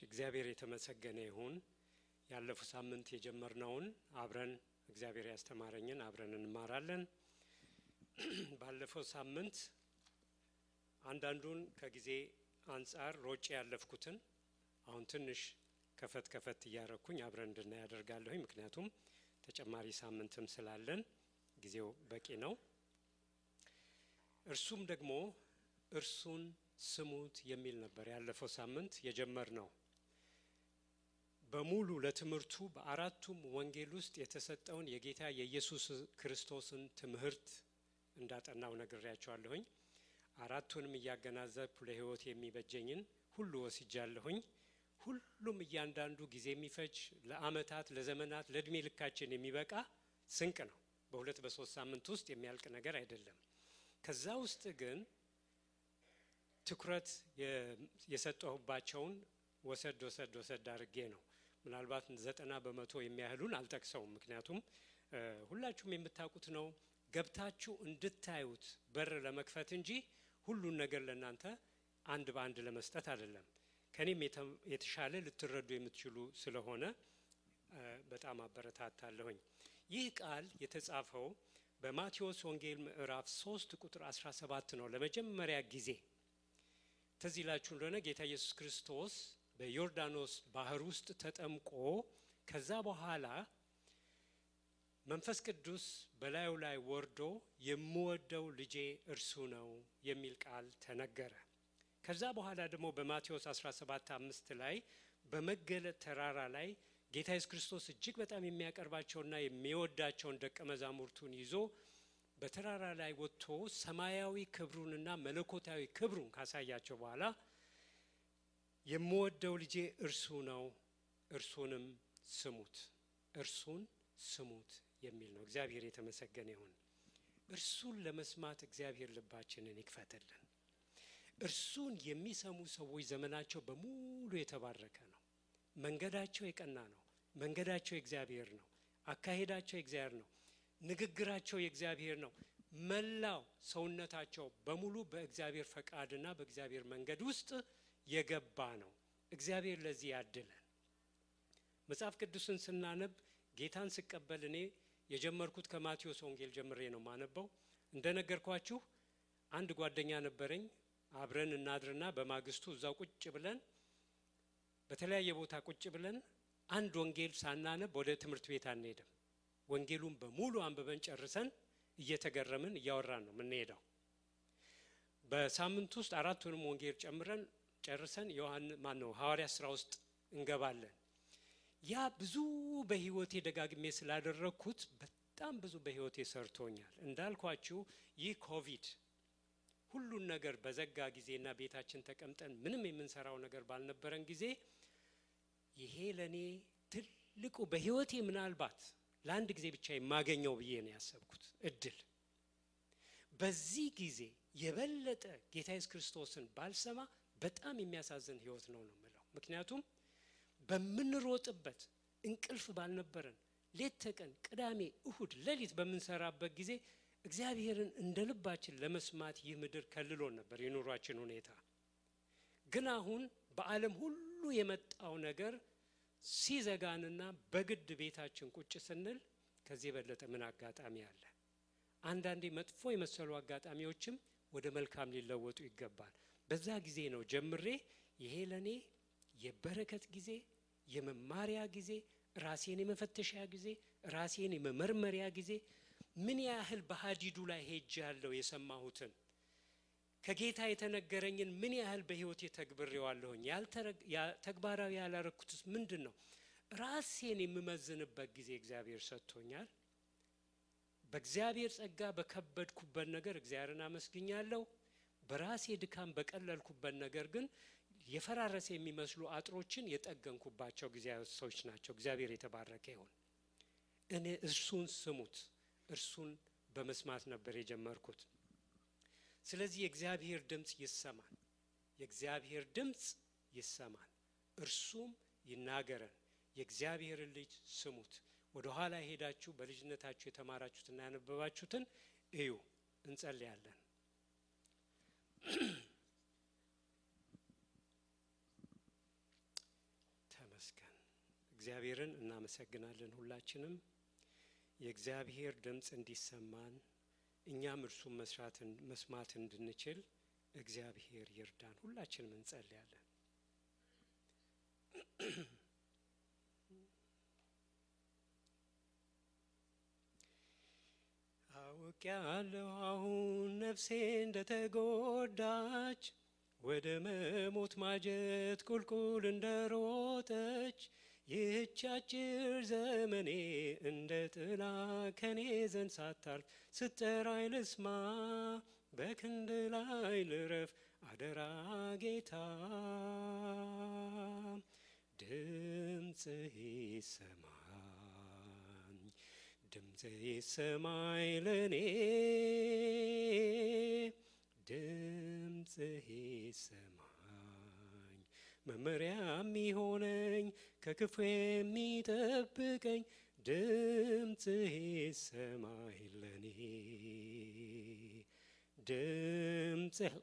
እግዚአብሔር የተመሰገነ ይሁን። ያለፈው ሳምንት የጀመርነውን አብረን እግዚአብሔር ያስተማረኝን አብረን እንማራለን። ባለፈው ሳምንት አንዳንዱን ከጊዜ አንፃር ሮጬ ያለፍኩትን አሁን ትንሽ ከፈት እያረኩኝ አብረን እንድናይ ያደርጋለሁ። ምክንያቱም ተጨማሪ ሳምንትም ስላለን ጊዜው በቂ ነው። እርሱም ደግሞ እርሱን ስሙት የሚል ነበር ያለፈው ሳምንት የጀመርነው። በሙሉ ለትምህርቱ በአራቱም ወንጌል ውስጥ የተሰጠውን የጌታ የኢየሱስ ክርስቶስን ትምህርት እንዳጠናው ነግሬያችኋለሁኝ። አራቱንም እያገናዘብኩ ለሕይወት የሚበጀኝን ሁሉ ወስጃለሁኝ። ሁሉም እያንዳንዱ ጊዜ የሚፈጅ ለአመታት ለዘመናት ለእድሜ ልካችን የሚበቃ ስንቅ ነው። በሁለት በሶስት ሳምንት ውስጥ የሚያልቅ ነገር አይደለም። ከዛ ውስጥ ግን ትኩረት የሰጠሁባቸውን ወሰድ አድርጌ ነው። ምናልባት 90% የሚያህሉን አልጠቅሰውም። ምክንያቱም ሁላችሁም የምታውቁት ነው። ገብታችሁ እንድታዩት በር ለመክፈት እንጂ ሁሉን ነገር ለእናንተ አንድ በአንድ ለመስጠት አይደለም። ከኔም የተሻለ ልትረዱ የምትችሉ ስለሆነ በጣም አበረታታለሁኝ። ይህ ቃል የተጻፈው በማቴዎስ ወንጌል ምዕራፍ 3 ቁጥር 17 ነው። ለመጀመሪያ ጊዜ ትዝ ይላችሁ እንደሆነ ጌታ ኢየሱስ ክርስቶስ በዮርዳኖስ ባህር ውስጥ ተጠምቆ ከዛ በኋላ መንፈስ ቅዱስ በላዩ ላይ ወርዶ የምወደው ልጄ እርሱ ነው የሚል ቃል ተነገረ። ከዛ በኋላ ደግሞ በማቴዎስ 17:5 ላይ በመገለጥ ተራራ ላይ ጌታ ኢየሱስ ክርስቶስ እጅግ በጣም የሚያቀርባቸውና የሚወዳቸውን ደቀ መዛሙርቱን ይዞ በተራራ ላይ ወጥቶ ሰማያዊ ክብሩንና መለኮታዊ ክብሩን ካሳያቸው በኋላ የምወደው ልጄ እርሱ ነው፣ እርሱንም ስሙት የሚል ነው። እግዚአብሔር የተመሰገነ ይሁን። እርሱን ለመስማት እግዚአብሔር ልባችንን ይክፈትልን። እርሱን የሚሰሙ ሰዎች ዘመናቸው በሙሉ የተባረከ ነው። መንገዳቸው የቀና ነው። መንገዳቸው የእግዚአብሔር ነው። አካሄዳቸው የእግዚአብሔር ነው። ንግግራቸው የእግዚአብሔር ነው። መላው ሰውነታቸው በሙሉ በእግዚአብሔር ፈቃድና በእግዚአብሔር መንገድ ውስጥ የገባ ነው። እግዚአብሔር ለዚህ ያድለን። መጽሐፍ ቅዱስን ስናነብ ጌታን ስቀበል እኔ የጀመርኩት ከማቴዎስ ወንጌል ጀምሬ ነው ማነበው። እንደነገርኳችሁ አንድ ጓደኛ ነበረኝ። አብረን እናድርና በማግስቱ እዛው ቁጭ ብለን በተለያየ ቦታ ቁጭ ብለን አንድ ወንጌል ሳናነብ ወደ ትምህርት ቤት አንሄድም። ወንጌሉን በሙሉ አንብበን ጨርሰን እየተገረምን እያወራን ነው የምንሄደው። በሳምንት ውስጥ አራቱንም ወንጌል ጨርሰን ሐዋርያት ሥራ ውስጥ እንገባለን። ያ ብዙ በህይወቴ ደጋግሜ ስላደረኩት በጣም ብዙ በህይወቴ ሰርቶኛል። እንዳልኳችሁ ይህ ኮቪድ ሁሉን ነገር በዘጋ ጊዜና ቤታችን ተቀምጠን ምንም የምንሰራው ነገር ባልነበረን ጊዜ ይሄ ለኔ ትልቁ በህይወቴ ምናልባት ለአንድ ጊዜ ብቻ የማገኘው ብዬ ነው ያሰብኩት እድል። በዚህ ጊዜ የበለጠ ጌታ ኢየሱስ ክርስቶስን ባልሰማ በጣም የሚያሳዝን ህይወት ነው የምለው። ምክንያቱም በምንሮጥበት እንቅልፍ ባልነበረን ሌት ተቀን ቅዳሜ እሁድ ሌሊት በምንሰራበት ጊዜ እግዚአብሔርን እንደልባችን ለመስማት ይህ ምድር ከልሎን ነበር የኑሯችን ሁኔታ። ግን አሁን በዓለም ሁሉ የመጣው ነገር ሲዘጋንና በግድ ቤታችን ቁጭ ስንል ከዚህ የበለጠ ምን አጋጣሚ አለ? አንዳንዴ መጥፎ የመሰሉ አጋጣሚዎችም ወደ መልካም ሊለወጡ ይገባል። በዛ ጊዜ ነው ጀምሬ ይሄ ለኔ የበረከት ጊዜ፣ የመማሪያ ጊዜ፣ ራሴን የመፈተሻ ጊዜ፣ ራሴን የመመርመሪያ ጊዜ፣ ምን ያህል በሐዲዱ ላይ ሄጃለሁ የሰማሁትን ከጌታ የተነገረኝን ምን ያህል በህይወቴ ተግብሬዋለሁኝ፣ ተግባራዊ ያላረኩትስ ምንድነው? ራሴን የምመዝንበት ጊዜ እግዚአብሔር ሰጥቶኛል። በእግዚአብሔር ጸጋ በከበድኩበት ነገር እግዚአብሔርን አመስግኛለሁ። በራሴ ድካም በቀለልኩበት ነገር ግን የፈራረሰ የሚመስሉ አጥሮችን የጠገንኩባቸው ጊዜያቶች ናቸው። እግዚአብሔር የተባረከ ይሁን። እኔ እርሱን ስሙት፣ እርሱን በመስማት ነበር የጀመርኩት። ስለዚህ የእግዚአብሔር ድምጽ ይሰማል። የእግዚአብሔር ድምጽ ይሰማል፣ እርሱም ይናገረን። የእግዚአብሔር ልጅ ስሙት። ወደ ኋላ ሄዳችሁ በልጅነታችሁ የተማራችሁትና ያነበባችሁትን እዩ። እንጸልያለን። ይመስገን። እግዚአብሔርን እናመሰግናለን። ሁላችንም የእግዚአብሔር ድምጽ እንዲሰማን እኛም እርሱን መስማት እንድንችል እግዚአብሔር ይርዳን። ሁላችንም እንጸልያለን። አውቄአለሁ አሁን ነፍሴ እንደተጎዳች ወደ መሞት ማጀት ቁልቁል እንደሮጠች ይህች አጭር ዘመኔ እንደ ጥላ ከኔ ዘንድ ሳታልፍ ስትጠራኝ ልስማ በክንድ ላይ ልረፍ አደራ ጌታ ድምፅህ ይሰማኝ ድምፅህ ይሰማኝ ለኔ ድምፅህ ይሰማኝ መመሪያ የሚሆነኝ ከክፉ የሚጠብቀኝ ድምፅህ ይሰማኝ ለኔ ድምፅህ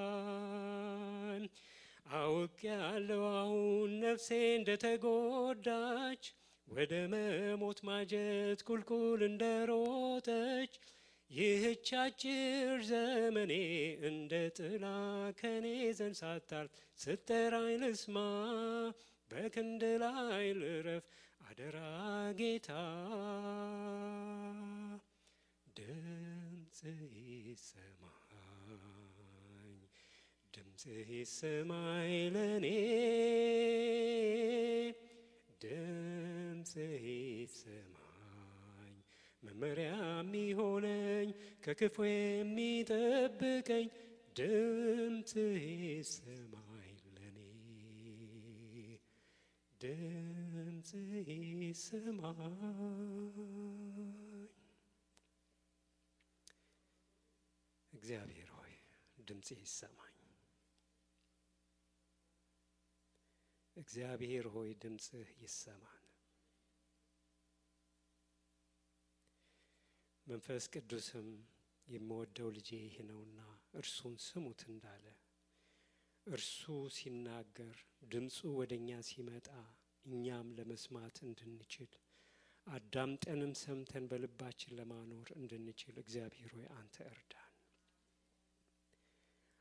ይሰማኝ አውቄአለሁ አሁን ነፍሴ እንደተጎዳች ወደ መሞት ማጀት ቁልቁል እንደሮጠች ይህች አጭር ዘመኔ እንደ ጥላ ከኔ ዘንድ ሳታልፍ ስትጠራኝ ልስማ በክንድ ላይ ልረፍ አደራ ጌታ ድምፅህ ይሰማኝ ድምፅህ ይሰማኝ ለኔ ድምፅህ ይሰማኝ መመሪያ የሚሆነኝ ከክፉ የሚጠብቀኝ ድምፅህ ይሰማኝ ለኔ ድምፅህ ይሰማኝ እግዚአብሔር ሆይ ድምፅህ ይሰማኝ እግዚአብሔር ሆይ ድምፅህ ይሰማን መንፈስ ቅዱስም የምወደው ልጄ ይህ ነውና እርሱን ስሙት እንዳለ እርሱ ሲናገር ድምፁ ወደኛ ሲመጣ እኛም ለመስማት እንድንችል አዳምጠንም ሰምተን በልባችን ለማኖር እንድንችል እግዚአብሔር ሆይ አንተ እርዳን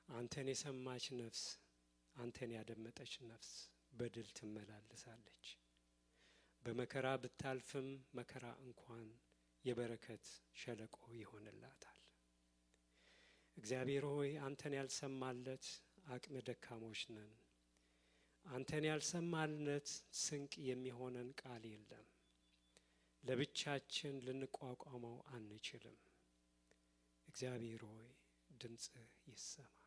አንተን የሰማች ነፍስ አንተን ያደመጠች ነፍስ በድል ትመላለሳለች በመከራ ብታልፍም መከራ እንኳን የበረከት ሸለቆ ይሆንላታል እግዚአብሔር ሆይ አንተን ያልሰማለት አቅመ ደካሞች ነን አንተን ያልሰማልነት ስንቅ የሚሆነን ቃል የለም ለብቻችን ልንቋቋመው አንችልም እግዚአብሔር ሆይ ድምፅህ ይሰማን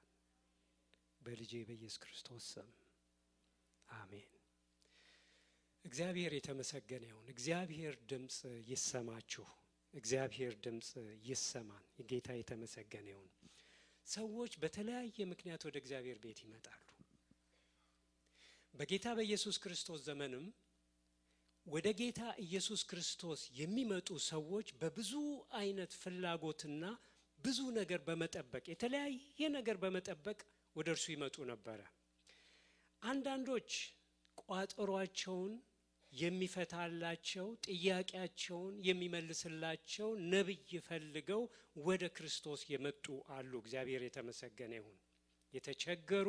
በልጄ በኢየሱስ ክርስቶስ ስም አሜን እግዚአብሔር የተመሰገነ ይሁን እግዚአብሔር ድምጽ ይሰማችሁ እግዚአብሔር ድምጽ ይሰማን የጌታ የተመሰገነ ይሁን ሰዎች በተለያየ ምክንያት ወደ እግዚአብሔር ቤት ይመጣሉ በጌታ በኢየሱስ ክርስቶስ ዘመንም ወደ ጌታ ኢየሱስ ክርስቶስ የሚመጡ ሰዎች በብዙ አይነት ፍላጎትና ብዙ ነገር በመጠበቅ የተለያየ ነገር በመጠበቅ ወደ እርሱ ይመጡ ነበር አንዳንዶች ቋጠሯቸውን የሚፈታላቸው ጥያቄያቸውን የሚመልስላቸው ነብይ ፈልገው ወደ ክርስቶስ የመጡ አሉ እግዚአብሔር የተመሰገነ ይሁን የተቸገሩ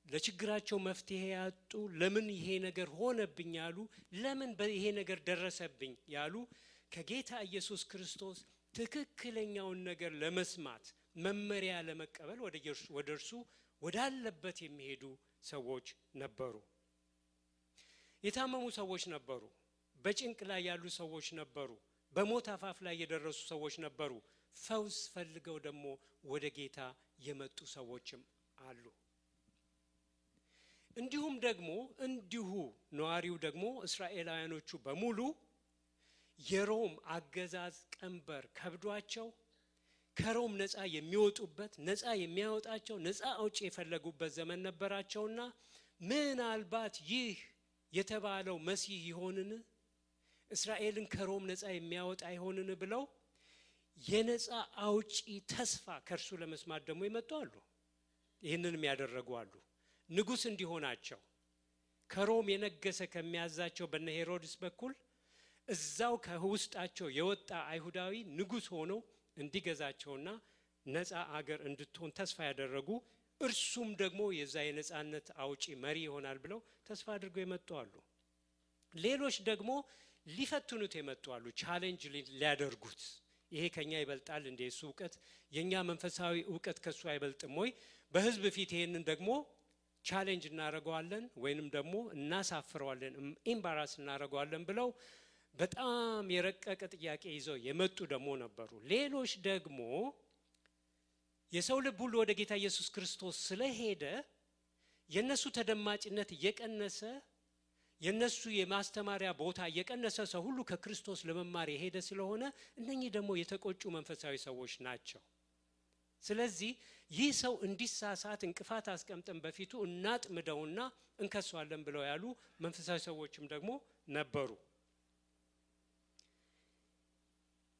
ለችግራቸው መፍትሄ ያጡ ለምን ይሄ ነገር ሆነብኝ ያሉ ለምን ይሄ ነገር ደረሰብኝ ያሉ ከጌታ ኢየሱስ ክርስቶስ ትክክለኛውን ነገር ለመስማት መመሪያ ለመቀበል ወደ እርሱ ወዳለበት የሚሄዱ ሰዎች ነበሩ የታመሙ ሰዎች ነበሩ በጭንቅ ላይ ያሉ ሰዎች ነበሩ በሞት አፋፍ ላይ የደረሱ ሰዎች ነበሩ ፈውስ ፈልገው ደግሞ ወደ ጌታ የመጡ ሰዎችም አሉ እንዲሁም ደግሞ ነዋሪው ደግሞ እስራኤላውያኖቹ በሙሉ የሮም አገዛዝ ቀንበር ከብዷቸው ከሮም ነፃ የሚወጡበት ነፃ የሚያወጣቸው ነፃ አውጪ የፈለጉበት ዘመን ነበራቸውና ምናልባት ይህ የተባለው መሲህ ይሆንን እስራኤልን ከሮም ነፃ የሚያወጣ ይሆንን ብለው የነፃ አውጪ ተስፋ ከርሱ ለመስማት ደግሞ ይመጡ አሉ ይሄንንም ያደረጉ አሉ ንጉስ እንዲሆናቸው ከሮም የነገሰ ከሚያዛቸው በነ ሄሮድስ በኩል እዛው ከውስጣቸው የወጣ አይሁዳዊ ንጉስ ሆኖ እንዲገዛቸውና ነፃ አገር እንድትሆን ተስፋ ያደረጉ እርሱም ደግሞ የዛ የነፃነት አውጪ መሪ ይሆናል ብለው ተስፋ አድርገው የመጡ አሉ። ሌሎች ደግሞ ሊፈትኑት የመጡ አሉ፣ ቻሌንጅ ሊያደርጉት። ይሄ ከኛ ይበልጣል እንደ እሱ ዕውቀት፣ የኛ መንፈሳዊ ዕውቀት ከሱ አይበልጥም ወይ? በህዝብ ፊት ይሄንን ደግሞ ቻሌንጅ እናረጋዋለን ወይንም ደግሞ እናሳፍረዋለን፣ ኢምባራስ እናረጋዋለን ብለው በጣም የረቀቀ ጥያቄ ይዘው የመጡ ደግሞ ነበሩ። ሌሎች ደግሞ የሰው ልብ ሁሉ ወደ ጌታ ኢየሱስ ክርስቶስ ስለሄደ የነሱ ተደማጭነት እየቀነሰ የነሱ የማስተማሪያ ቦታ እየቀነሰ ሰው ሁሉ ከክርስቶስ ለመማር የሄደ ስለሆነ እነኚህ ደግሞ የተቆጩ መንፈሳዊ ሰዎች ናቸው። ስለዚህ ይህ ሰው እንዲሳሳት እንቅፋት አስቀምጠን በፊቱ እናጥምደውና እንከሷለን ብለው ያሉ መንፈሳዊ ሰዎችም ደግሞ ነበሩ።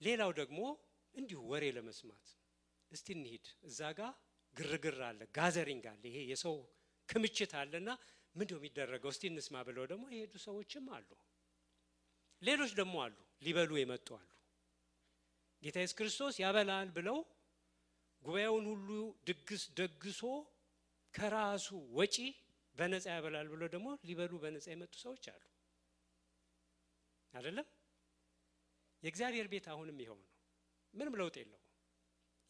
ሌላው ደግሞ እንዲሁ ወሬ ለመስማት እስቲ እንሂድ፣ እዛ ጋር ግርግር አለ፣ ጋዘሪንግ አለ፣ ይሄ የሰው ክምችት አለና ምንድነው የሚደረገው እስቲ እንስማ ብለው ደግሞ የሄዱ ሰዎችም አሉ። ሌሎች ደግሞ አሉ ሊበሉ የመጡ አሉ። ጌታ ኢየሱስ ክርስቶስ ያበላል ብለው ጉባኤውን ሁሉ ድግስ ደግሶ ከራሱ ወጪ በነፃ ያበላል ብለው ደግሞ ሊበሉ በነፃ የመጡ ሰዎች አሉ አይደለም? የእግዚአብሔር ቤት አሁንም ይሄው ነው፣ ምንም ለውጥ የለውም።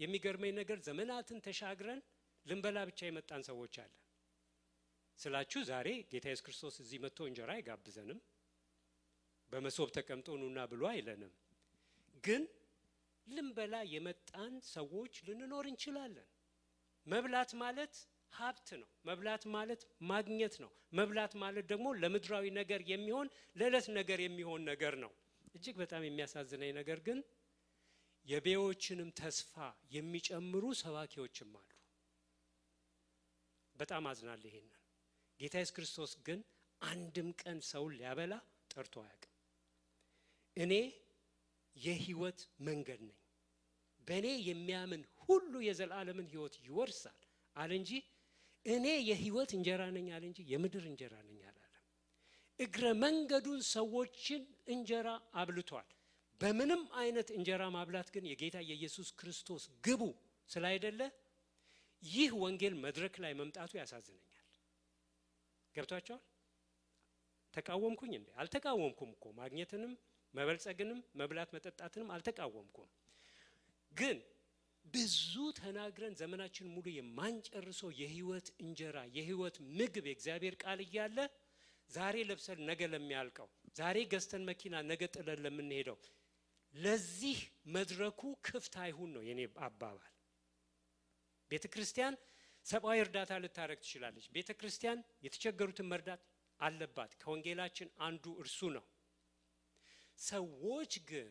የሚገርመኝ ነገር ዘመናትን ተሻግረን ልንበላ ብቻ የመጣን ሰዎች አለ ስላችሁ ዛሬ ጌታ ኢየሱስ ክርስቶስ እዚህ መጥቶ እንጀራ አይጋብዘንም፣ በመሶብ ተቀምጦ ኑና ብሎ አይለንም። ግን ልንበላ የመጣን ሰዎች ልንኖር እንችላለን። መብላት ማለት ሀብት ነው። መብላት ማለት ማግኘት ነው። መብላት ማለት ደግሞ ለምድራዊ ነገር የሚሆን ለዕለት ነገር የሚሆን ነገር ነው። እጅግ በጣም የሚያሳዝነኝ ነገር ግን የቤዎችንም ተስፋ የሚጨምሩ ሰባኪዎችም አሉ። በጣም አዝናለሁ ይሄንን። ጌታ ኢየሱስ ክርስቶስ ግን አንድም ቀን ሰው ሊያበላ ጠርቶ አያውቅም። እኔ የህይወት መንገድ ነኝ፣ በእኔ የሚያምን ሁሉ የዘላለምን ህይወት ይወርሳል አለ እንጂ እኔ የህይወት እንጀራ ነኝ አለ እንጂ የምድር እንጀራ ነኝ አላለም። እግረ መንገዱን ሰዎችን እንጀራ አብልቷል። በምንም አይነት እንጀራ ማብላት ግን የጌታ የኢየሱስ ክርስቶስ ግቡ ስላይደለ ይህ ወንጌል መድረክ ላይ መምጣቱ ያሳዝነኛል። ገብቷቸዋል? ተቃወምኩኝ እንዴ? አልተቃወምኩም እኮ። ማግኘትንም መበልጸግንም መብላት መጠጣትንም አልተቃወምኩም። ግን ብዙ ተናግረን ዘመናችን ሙሉ የማንጨርሰው የህይወት እንጀራ የህይወት ምግብ የእግዚአብሔር ቃል እያለ ዛሬ ለብሰን ነገ ለሚያልቀው፣ ዛሬ ገዝተን መኪና ነገ ጥለን ለምንሄደው ለዚህ መድረኩ ክፍት አይሁን ነው የኔ አባባል። ቤተክርስቲያን ሰብአዊ እርዳታ ልታረግ ትችላለች። ቤተክርስቲያን የተቸገሩትን መርዳት አለባት። ከወንጌላችን አንዱ እርሱ ነው። ሰዎች ግን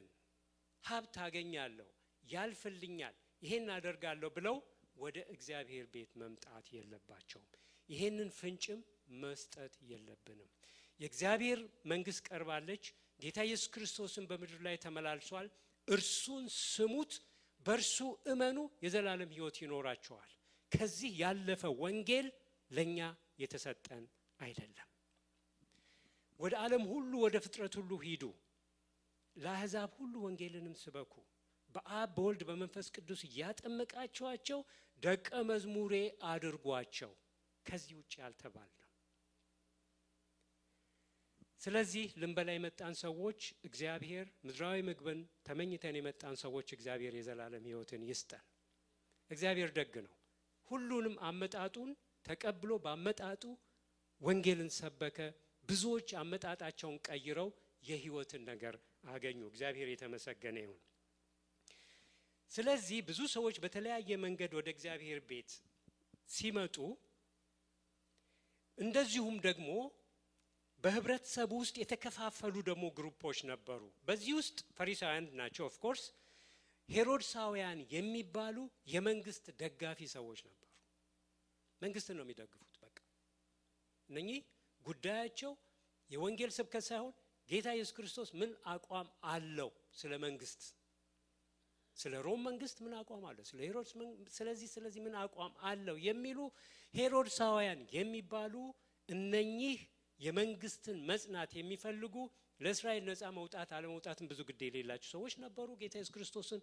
ሀብት አገኛለሁ፣ ያልፍልኛል፣ ይሄን አደርጋለሁ ብለው ወደ እግዚአብሔር ቤት መምጣት የለባቸውም። ይሄንን ፍንጭም መስጠት የለብንም። የእግዚአብሔር መንግስት ቀርባለች። ጌታ ኢየሱስ ክርስቶስን በምድር ላይ ተመላልሷል። እርሱን ስሙት፣ በእርሱ እመኑ፣ የዘላለም ህይወት ይኖራችኋል። ከዚህ ያለፈ ወንጌል ለኛ የተሰጠን አይደለም። ወደ ዓለም ሁሉ ወደ ፍጥረት ሁሉ ሂዱ፣ ለአሕዛብ ሁሉ ወንጌልንም ስበኩ፣ በአብ በወልድ በመንፈስ ቅዱስ እያጠመቃችኋቸው ደቀ መዝሙሬ አድርጓቸው። ከዚህ ውጪ ያልተባልነው። ስለዚህ ልንበላ የመጣን ሰዎች እግዚአብሔር ምድራዊ ምግብን ተመኝተን የመጣን ሰዎች እግዚአብሔር የዘላለም ህይወትን ይስጠን። እግዚአብሔር ደግ ነው። ሁሉንም አመጣጡን ተቀብሎ ባመጣጡ ወንጌልን ሰበከ። ብዙዎች አመጣጣቸውን ቀይረው የህይወትን ነገር አገኙ። እግዚአብሔር የተመሰገነ ይሁን። ስለዚህ ብዙ ሰዎች በተለያየ መንገድ ወደ እግዚአብሔር ቤት ሲመጡ እንደዚሁም ደግሞ በህብረተሰቡ ውስጥ የተከፋፈሉ ደግሞ ግሩፖች ነበሩ። በዚህ ውስጥ ፈሪሳውያን ናቸው። ኦፍ ኮርስ ሄሮድሳውያን የሚባሉ የመንግስት ደጋፊ ሰዎች ነበሩ። መንግስትን ነው የሚደግፉት። በቃ እነኚህ ጉዳያቸው የወንጌል ስብከት ሳይሆን ጌታ ኢየሱስ ክርስቶስ ምን አቋም አለው ስለ መንግስት ስለ ሮም መንግስት ምን አቋም አለው? ስለ ሄሮድስ ስለዚህ ምን አቋም አለው የሚሉ ሄሮድሳውያን የሚባሉ እነኚህ የመንግስትን መጽናት የሚፈልጉ ለእስራኤል ነፃ መውጣት አለመውጣትን ብዙ ግድ የሌላቸው ሰዎች ነበሩ። ጌታ ኢየሱስ ክርስቶስን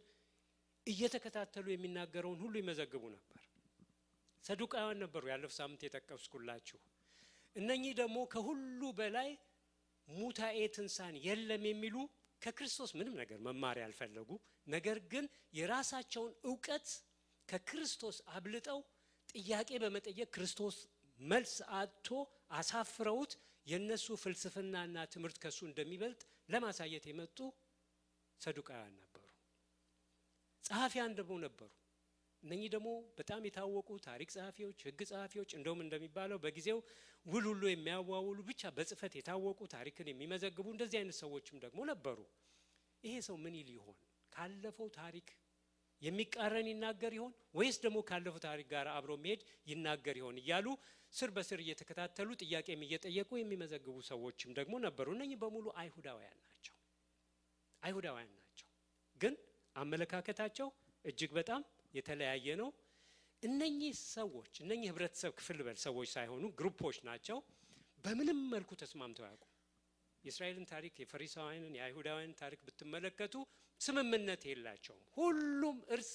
እየተከታተሉ የሚናገረውን ሁሉ ይመዘግቡ ነበር። ሰዱቃውያን ነበሩ፣ ያለፈው ሳምንት የጠቀስኩላችሁ። እነኚህ ደግሞ ከሁሉ በላይ ሙታኤ ትንሣኤ የለም የሚሉ ከክርስቶስ ምንም ነገር መማር ያልፈለጉ፣ ነገር ግን የራሳቸውን ዕውቀት ከክርስቶስ አብልጠው ጥያቄ በመጠየቅ ክርስቶስ መልስ አጥቶ አሳፍረውት የነሱ ፍልስፍናና ትምህርት ከሱ እንደሚበልጥ ለማሳየት የመጡ ሰዱቃውያን ነበሩ። ጸሐፊያን ደግሞ ነበሩ። እነኚህ ደግሞ በጣም የታወቁ ታሪክ ጸሐፊዎች፣ ሕግ ጸሐፊዎች፣ እንደውም እንደሚባለው በጊዜው ውል ሁሉ የሚያዋውሉ ብቻ በጽፈት የታወቁ ታሪክን የሚመዘግቡ እንደዚህ አይነት ሰዎችም ደግሞ ነበሩ። ይሄ ሰው ምን ይል ይሆን? ካለፈው ታሪክ የሚቃረን ይናገር ይሆን ወይስ ደግሞ ካለፈው ታሪክ ጋር አብሮ መሄድ ይናገር ይሆን እያሉ ስር በስር እየተከታተሉ ጥያቄም እየጠየቁ የሚመዘግቡ ሰዎችም ደግሞ ነበሩ። እነኚህ በሙሉ አይሁዳውያን ናቸው። ግን አመለካከታቸው እጅግ በጣም የተለያየ ነው። እነኚህ ሰዎች እነኚህ ህብረተሰብ ክፍል ሰዎች ሳይሆኑ ግሩፖች ናቸው። በምንም መልኩ ተስማምተው ያውቁ። የእስራኤልን ታሪክ የፈሪሳውያንን የአይሁዳውያንን ታሪክ ብትመለከቱ ስምምነት የላቸውም። ሁሉም እርስ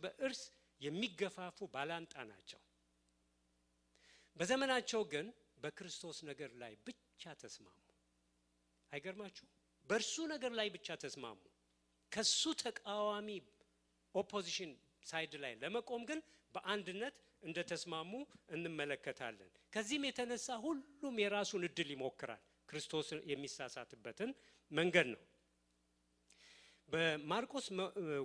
በእርስ የሚገፋፉ ባላንጣ ናቸው። በዘመናቸው ግን በክርስቶስ ነገር ላይ ብቻ ተስማሙ። አይገርማችሁ? በእርሱ ነገር ላይ ብቻ ተስማሙ። ከሱ ተቃዋሚ ኦፖዚሽን ሳይድ ላይ ለመቆም ግን በአንድነት እንደተስማሙ እንመለከታለን። ከዚህም የተነሳ ሁሉም የራሱን እድል ይሞክራል። ክርስቶስ የሚሳሳትበትን መንገድ ነው። በማርቆስ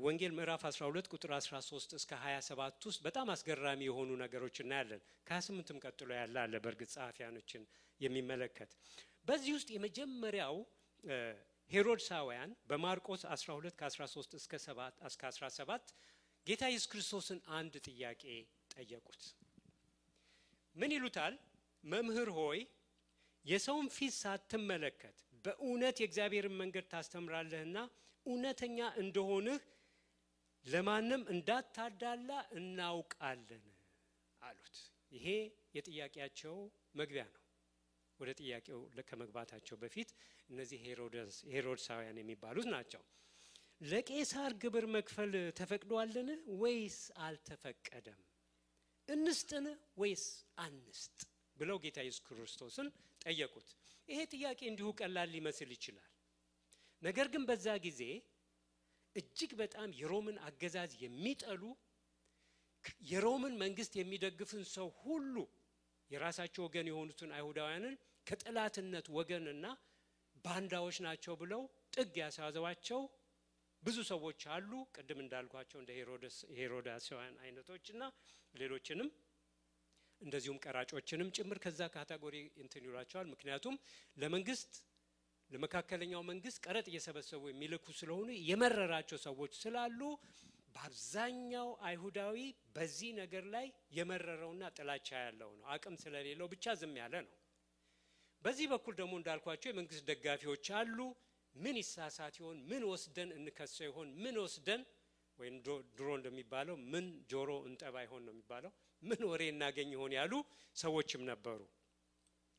ወንጌል ምዕራፍ 12 ቁጥር 13 እስከ 27 ውስጥ በጣም አስገራሚ የሆኑ ነገሮች እናያለን። ከ28ም ቀጥሎ ያለ አለ በእርግጥ ጸሐፊያኖችን የሚመለከት። በዚህ ውስጥ የመጀመሪያው ሄሮድሳውያን በማርቆስ 12 ከ13 እስከ 17 ጌታ ኢየሱስ ክርስቶስን አንድ ጥያቄ ጠየቁት። ምን ይሉታል? መምህር ሆይ የሰውን ፊት ሳትመለከት በእውነት የእግዚአብሔርን መንገድ ታስተምራለህና እውነተኛ እንደሆንህ ለማንም እንዳታዳላ እናውቃለን አሉት። ይሄ የጥያቄያቸው መግቢያ ነው። ወደ ጥያቄው ከመግባታቸው በፊት እነዚህ ሄሮድሳውያን የሚባሉት ናቸው። ለቄሳር ግብር መክፈል ተፈቅዷልን ወይስ አልተፈቀደም? እንስጥን ወይስ አንስጥ ብለው ጌታ ኢየሱስ ክርስቶስን ጠየቁት። ይሄ ጥያቄ እንዲሁ ቀላል ሊመስል ይችላል። ነገር ግን በዛ ጊዜ እጅግ በጣም የሮምን አገዛዝ የሚጠሉ የሮምን መንግስት የሚደግፍን ሰው ሁሉ የራሳቸው ወገን የሆኑትን አይሁዳውያንን ከጠላትነት ወገንና ባንዳዎች ናቸው ብለው ጥግ ያሳዘዋቸው ብዙ ሰዎች አሉ። ቅድም እንዳልኳቸው እንደ ሄሮዳውያን አይነቶችና ሌሎችንም እንደዚሁም ቀራጮችንም ጭምር ከዛ ካቴጎሪ እንትን ይሏቸዋል። ምክንያቱም ለመካከለኛው መንግስት ቀረጥ እየሰበሰቡ የሚልኩ ስለሆኑ የመረራቸው ሰዎች ስላሉ በአብዛኛው አይሁዳዊ በዚህ ነገር ላይ የመረረውና ጥላቻ ያለው ነው። አቅም ስለሌለው ብቻ ዝም ያለ ነው። በዚህ በኩል ደግሞ እንዳልኳቸው የመንግስት ደጋፊዎች አሉ። ምን ይሳሳት ይሆን? ምን ወስደን እንከሰው ይሆን? ምን ወስደን ወይም ድሮ እንደሚባለው ምን ጆሮ እንጠባ ይሆን ነው የሚባለው፣ ምን ወሬ እናገኝ ይሆን ያሉ ሰዎችም ነበሩ።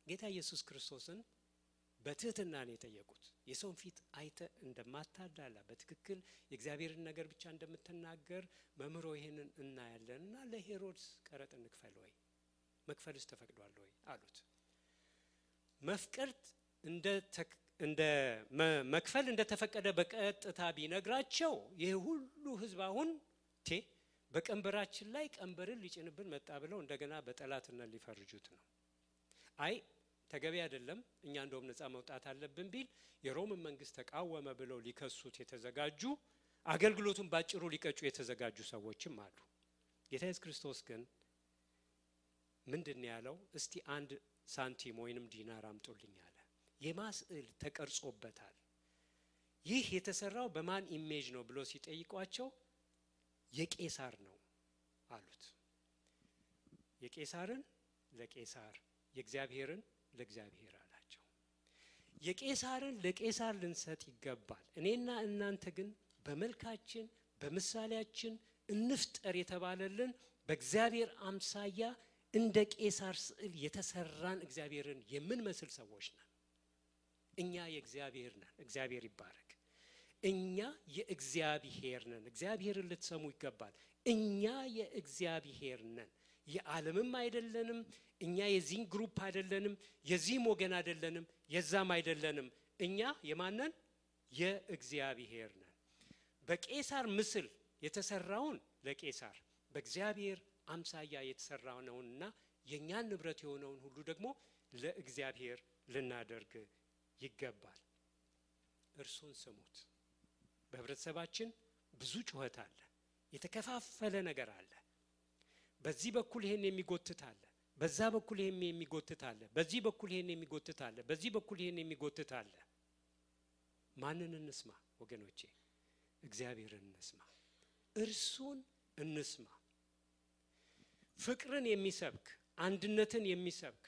ጌታ ኢየሱስ ክርስቶስን በትህትና ነው የጠየቁት። የሰውን ፊት አይተ እንደማታዳላ በትክክል የእግዚአብሔርን ነገር ብቻ እንደምትናገር መምህሮ ይሄንን እናያለንና ለሄሮድስ ቀረጥ እንክፈል ወይ? መክፈልስ ተፈቅዷል ወይ አሉት። መክፈል እንደተፈቀደ በቀጥታ ቢነግራቸው ይሄ ሁሉ ህዝብ አሁን በቀንበራችን ላይ ቀንበርን ሊጭንብን መጣ ብለው እንደገና በጠላትነት ሊፈርጁት ነው። አይ ተገቢ አይደለም፣ እኛ እንደውም ነፃ መውጣት አለብን ቢል የሮምን መንግስት ተቃወመ ብለው ሊከሱት የተዘጋጁ አገልግሎቱን ባጭሩ ሊቀጩ የተዘጋጁ ሰዎችም አሉ። ጌታ ኢየሱስ ክርስቶስ ግን ምንድነው ያለው? እስቲ አንድ ሳንቲም ወይንም ዲናር አምጡልኝ አለ። የማስዕል ተቀርጾበታል። ይህ የተሰራው በማን ኢሜጅ ነው ብሎ ሲጠይቋቸው የቄሳር ነው አሉት። የቄሳርን ለቄሳር የእግዚአብሔርን ለእግዚአብሔር አላቸው። የቄሳርን ለቄሳር ልንሰጥ ይገባል፣ እኔና እናንተ ግን በመልካችን በምሳሌያችን እንፍጠር የተባለልን በእግዚአብሔር አምሳያ እንደ ቄሳር ስዕል የተሰራን እግዚአብሔርን የምንመስል ሰዎች ነን። እኛ የእግዚአብሔር ነን። እግዚአብሔር ይባረክ። እኛ የእግዚአብሔር ነን። እግዚአብሔርን ልትሰሙ ይገባል። እኛ የእግዚአብሔር ነን። የዓለምም አይደለንም። እኛ የዚህ ግሩፕ አይደለንም። የዚህም ወገን አይደለንም። የዛም አይደለንም። እኛ የማንን? የእግዚአብሔር ነን። በቄሳር ምስል የተሰራውን ለቄሳር፣ በእግዚአብሔር አምሳያ የተሰራውንና የኛን ንብረት የሆነውን ሁሉ ደግሞ ለእግዚአብሔር ልናደርግ ይገባል። እርሱን ስሙት። በህብረተሰባችን ብዙ ጩኸት አለ። የተከፋፈለ ነገር አለ። በዚህ በኩል ይሄን የሚጎትት አለ፣ በዛ በኩል ይሄን የሚጎትት አለ፣ በዚህ በኩል ይሄን የሚጎትት አለ፣ በዚህ በኩል ይሄን የሚጎትት አለ። ማንን እንስማ ወገኖቼ? እግዚአብሔርን እንስማ። እርሱን እንስማ። ፍቅርን የሚሰብክ አንድነትን የሚሰብክ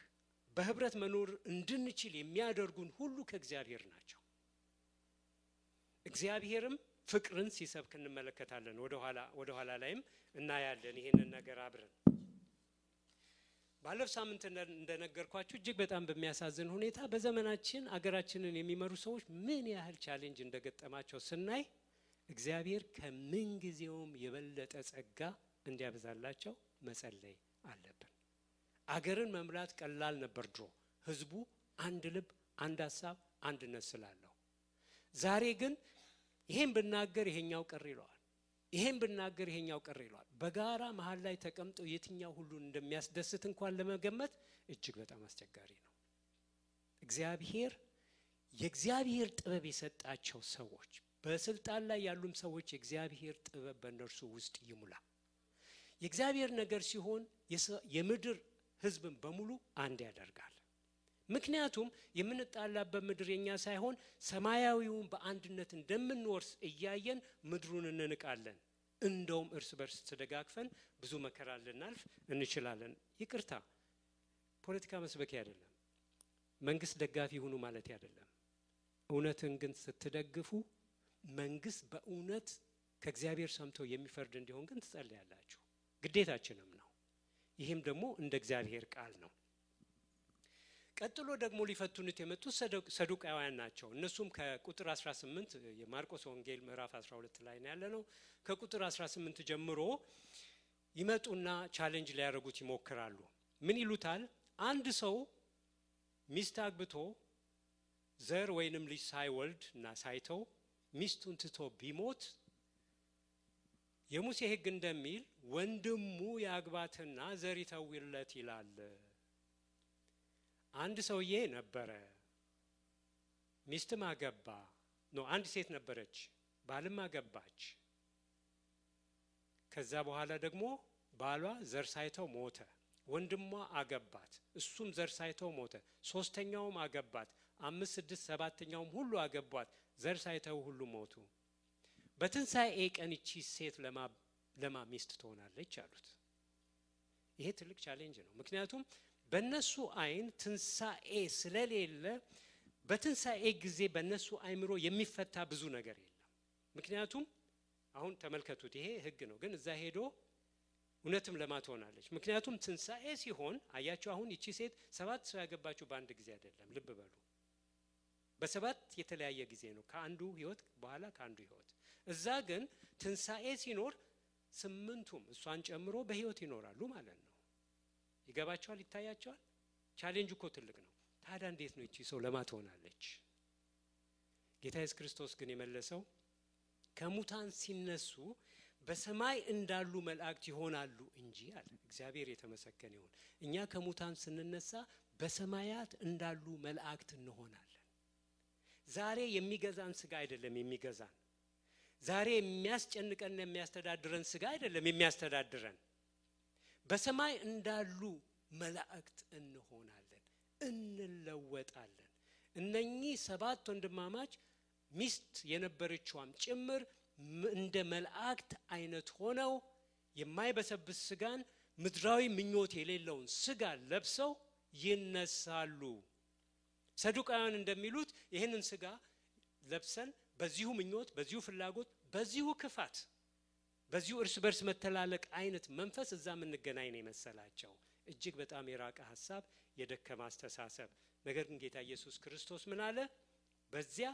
በህብረት መኖር እንድንችል የሚያደርጉን ሁሉ ከእግዚአብሔር ናቸው። እግዚአብሔርም ፍቅርን ሲሰብክ እንመለከታለን። ወደ ኋላ ላይም እናያለን ይሄንን ነገር አብረን። ባለፈው ሳምንት እንደነገርኳችሁ እጅግ በጣም በሚያሳዝን ሁኔታ በዘመናችን አገራችንን የሚመሩ ሰዎች ምን ያህል ቻሌንጅ እንደገጠማቸው ስናይ እግዚአብሔር ከምን ጊዜውም የበለጠ ጸጋ እንዲያበዛላቸው መጸለይ አለብን። አገርን መምራት ቀላል ነበር ድሮ፣ ህዝቡ አንድ ልብ፣ አንድ ሐሳብ፣ አንድነት ስላለው። ዛሬ ግን ይሄን ብናገር ይሄኛው ቀር ይለዋል፣ ይሄን ብናገር ይሄኛው ቀር ይለዋል። በጋራ መሃል ላይ ተቀምጠው የትኛው ሁሉን እንደሚያስደስት እንኳን ለመገመት እጅግ በጣም አስቸጋሪ ነው። እግዚአብሔር የእግዚአብሔር ጥበብ የሰጣቸው ሰዎች፣ በስልጣን ላይ ያሉም ሰዎች የእግዚአብሔር ጥበብ በእነርሱ ውስጥ ይሙላ። የእግዚአብሔር ነገር ሲሆን የምድር ህዝብን በሙሉ አንድ ያደርጋል። ምክንያቱም የምንጣላበት ምድር የኛ ሳይሆን ሰማያዊውን በአንድነት እንደምንወርስ እያየን ምድሩን እንንቃለን። እንደውም እርስ በርስ ተደጋግፈን ብዙ መከራ ልናልፍ እንችላለን። ይቅርታ፣ ፖለቲካ መስበክ አይደለም፣ መንግስት ደጋፊ ሁኑ ማለት አይደለም። እውነትን ግን ስትደግፉ መንግስት በእውነት ከእግዚአብሔር ሰምቶ የሚፈርድ እንዲሆን ግን ትጸልያላችሁ፣ ግዴታችንም ነው። ይህም ደግሞ እንደ እግዚአብሔር ቃል ነው። ቀጥሎ ደግሞ ሊፈቱኑት የመጡት ሰዱቃውያን ናቸው። እነሱም ከቁጥር 18 የማርቆስ ወንጌል ምዕራፍ 12 ላይ ነው ያለነው። ከቁጥር 18 ጀምሮ ይመጡና ቻሌንጅ ሊያደርጉት ይሞክራሉ። ምን ይሉታል? አንድ ሰው ሚስት አግብቶ ዘር ወይንም ልጅ ሳይወልድ እና ሳይተው ሚስቱን ትቶ ቢሞት የሙሴ ሕግ እንደሚል ወንድሙ ያግባትና ዘር ይተውለት ይላል። አንድ ሰውዬ ነበረ፣ ሚስትም አገባ ነው። አንድ ሴት ነበረች፣ ባልም አገባች። ከዛ በኋላ ደግሞ ባሏ ዘር ሳይተው ሞተ። ወንድሟ አገባት፣ እሱም ዘር ሳይተው ሞተ። ሶስተኛውም አገባት፣ 5 6 7ኛውም ሁሉ አገቧት፣ ዘር ሳይተው ሁሉ ሞቱ። በትንሣኤ ቀን እቺ ሴት ለማ ሚስት ትሆናለች አሉት። ይሄ ትልቅ ቻሌንጅ ነው። ምክንያቱም በነሱ አይን ትንሣኤ ስለሌለ በትንሣኤ ጊዜ በነሱ አይምሮ የሚፈታ ብዙ ነገር የለም። ምክንያቱም አሁን ተመልከቱት፣ ይሄ ህግ ነው፣ ግን እዛ ሄዶ እውነትም ለማ ትሆናለች። ምክንያቱም ትንሣኤ ሲሆን አያችሁ፣ አሁን እቺ ሴት 7 ሰው ያገባችሁ በአንድ ጊዜ አይደለም። ልብ በሉ፣ በ7 የተለያየ ጊዜ ነው፣ ከአንዱ ህይወት በኋላ ከአንዱ ህይወት። እዛ ግን ትንሣኤ ሲኖር 8ቱም እሷን ጨምሮ በህይወት ይኖራሉ ማለት ነው። ይገባቸዋል? ይታያቸዋል? ቻሌንጅ እኮ ትልቅ ነው። ታዲያ እንዴት ነው እቺ ሰው ለማ ትሆናለች? ጌታ ኢየሱስ ክርስቶስ ግን የመለሰው ከሙታን ሲነሱ በሰማይ እንዳሉ መላእክት ይሆናሉ እንጂ አለ። እግዚአብሔር የተመሰገነ ይሁን። እኛ ከሙታን ስንነሳ በሰማያት እንዳሉ መላእክት እንሆናለን። ዛሬ የሚገዛን ስጋ አይደለም የሚገዛን። ዛሬ የሚያስጨንቀን የሚያስተዳድረን ስጋ አይደለም የሚያስተዳድረን። በሰማይ እንዳሉ መላእክት እንሆናለን፣ እንለወጣለን። እነኚህ 7 ወንድማማች ሚስት የነበረችዋም ጭምር እንደ መላእክት አይነት ሆነው የማይበሰብስ ስጋን ምድራዊ ምኞት የሌለውን ስጋ ለብሰው ይነሳሉ። ሰዱቃውያን እንደሚሉት ይህንን ስጋ ለብሰን በዚሁ ምኞት በዚሁ ፍላጎት በዚሁ ክፋት በዚሁ እርስ በርስ መተላለቅ አይነት መንፈስ እዛም እንገናኝ ነው የመሰላቸው። እጅግ በጣም የራቀ ሐሳብ፣ የደከመ አስተሳሰብ። ነገር ግን ጌታ ኢየሱስ ክርስቶስ ምን አለ? በዚያ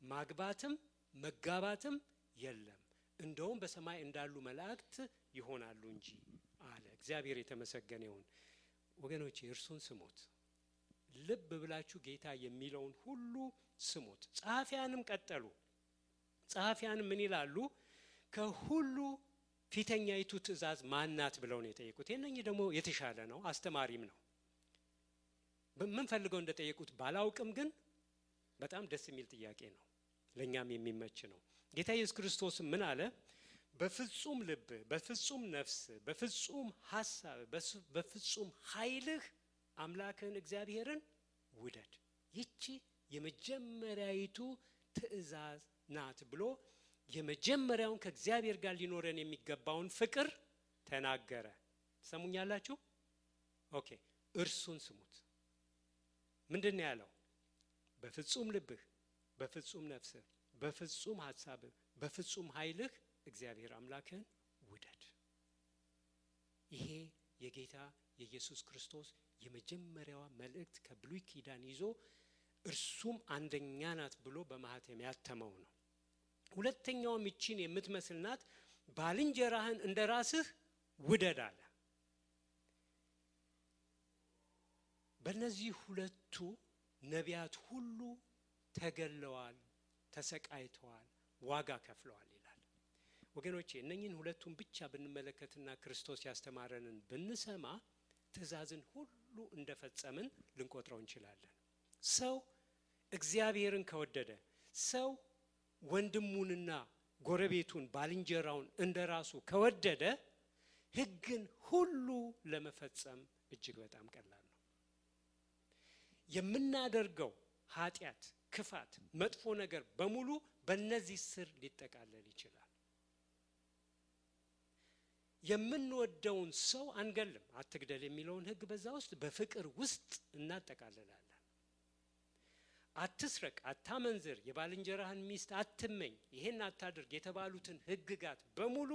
ማግባትም መጋባትም የለም፣ እንደውም በሰማይ እንዳሉ መላእክት ይሆናሉ እንጂ አለ። እግዚአብሔር የተመሰገነ ይሁን። ወገኖቼ እርሱን ስሙት። ልብ ብላችሁ ጌታ የሚለውን ሁሉ ስሙት። ጸሐፊያንም ቀጠሉ። ጸሐፊያንም ምን ይላሉ? ከሁሉ ፊተኛይቱ ትእዛዝ ማናት ብለው ነው የጠየቁት። የነኚህ ደግሞ የተሻለ ነው፣ አስተማሪም ነው። ምን ፈልገው እንደጠየቁት ባላውቅም ግን በጣም ደስ የሚል ጥያቄ ነው፣ ለኛም የሚመች ነው። ጌታ ኢየሱስ ክርስቶስ ምን አለ? በፍጹም ልብ፣ በፍጹም ነፍስ፣ በፍጹም ሐሳብ፣ በፍጹም ኃይልህ አምላክህን እግዚአብሔርን ውደድ። ይቺ የመጀመሪያይቱ ትእዛዝ ናት ብሎ የመጀመሪያውን ከእግዚአብሔር ጋር ሊኖረን የሚገባውን ፍቅር ተናገረ። ሰሙኛላችሁ? ኦኬ፣ እርሱን ስሙት። ምንድነው ያለው? በፍጹም ልብህ፣ በፍጹም ነፍስህ፣ በፍጹም ሐሳብህ፣ በፍጹም ኃይልህ እግዚአብሔር አምላክህን ውደድ። ይሄ የጌታ የኢየሱስ ክርስቶስ የመጀመሪያዋ መልእክት ከብሉይ ኪዳን ይዞ እርሱም አንደኛ ናት ብሎ በማህተም ያተመው ነው። ሁለተኛውም ይቺን የምትመስል ናት፣ ባልንጀራህን እንደራስህ ውደድ አለ። በእነዚህ ሁለቱ ነቢያት ሁሉ ተገለዋል፣ ተሰቃይተዋል፣ ዋጋ ከፍለዋል ይላል። ወገኖቼ እነኚህን ሁለቱን ብቻ ብንመለከትና ክርስቶስ ያስተማረንን ብንሰማ ትእዛዝን ሁሉ እንደፈጸምን ልንቆጥረው እንችላለን። ሰው እግዚአብሔርን ከወደደ፣ ሰው ወንድሙንና ጎረቤቱን ባልንጀራውን እንደራሱ ከወደደ ሕግን ሁሉ ለመፈጸም እጅግ በጣም ቀላል ነው። የምናደርገው ኃጢአት፣ ክፋት፣ መጥፎ ነገር በሙሉ በእነዚህ ስር ሊጠቃለል ይችላል። የምንወደውን ሰው አንገልም፣ አትግደል የሚለውን ሕግ በዛ ውስጥ በፍቅር ውስጥ እናጠቃልላለን። አትስረቅ፣ አታመንዝር፣ የባልንጀራህን ሚስት አትመኝ፣ ይሄን አታድርግ የተባሉትን ሕግጋት በሙሉ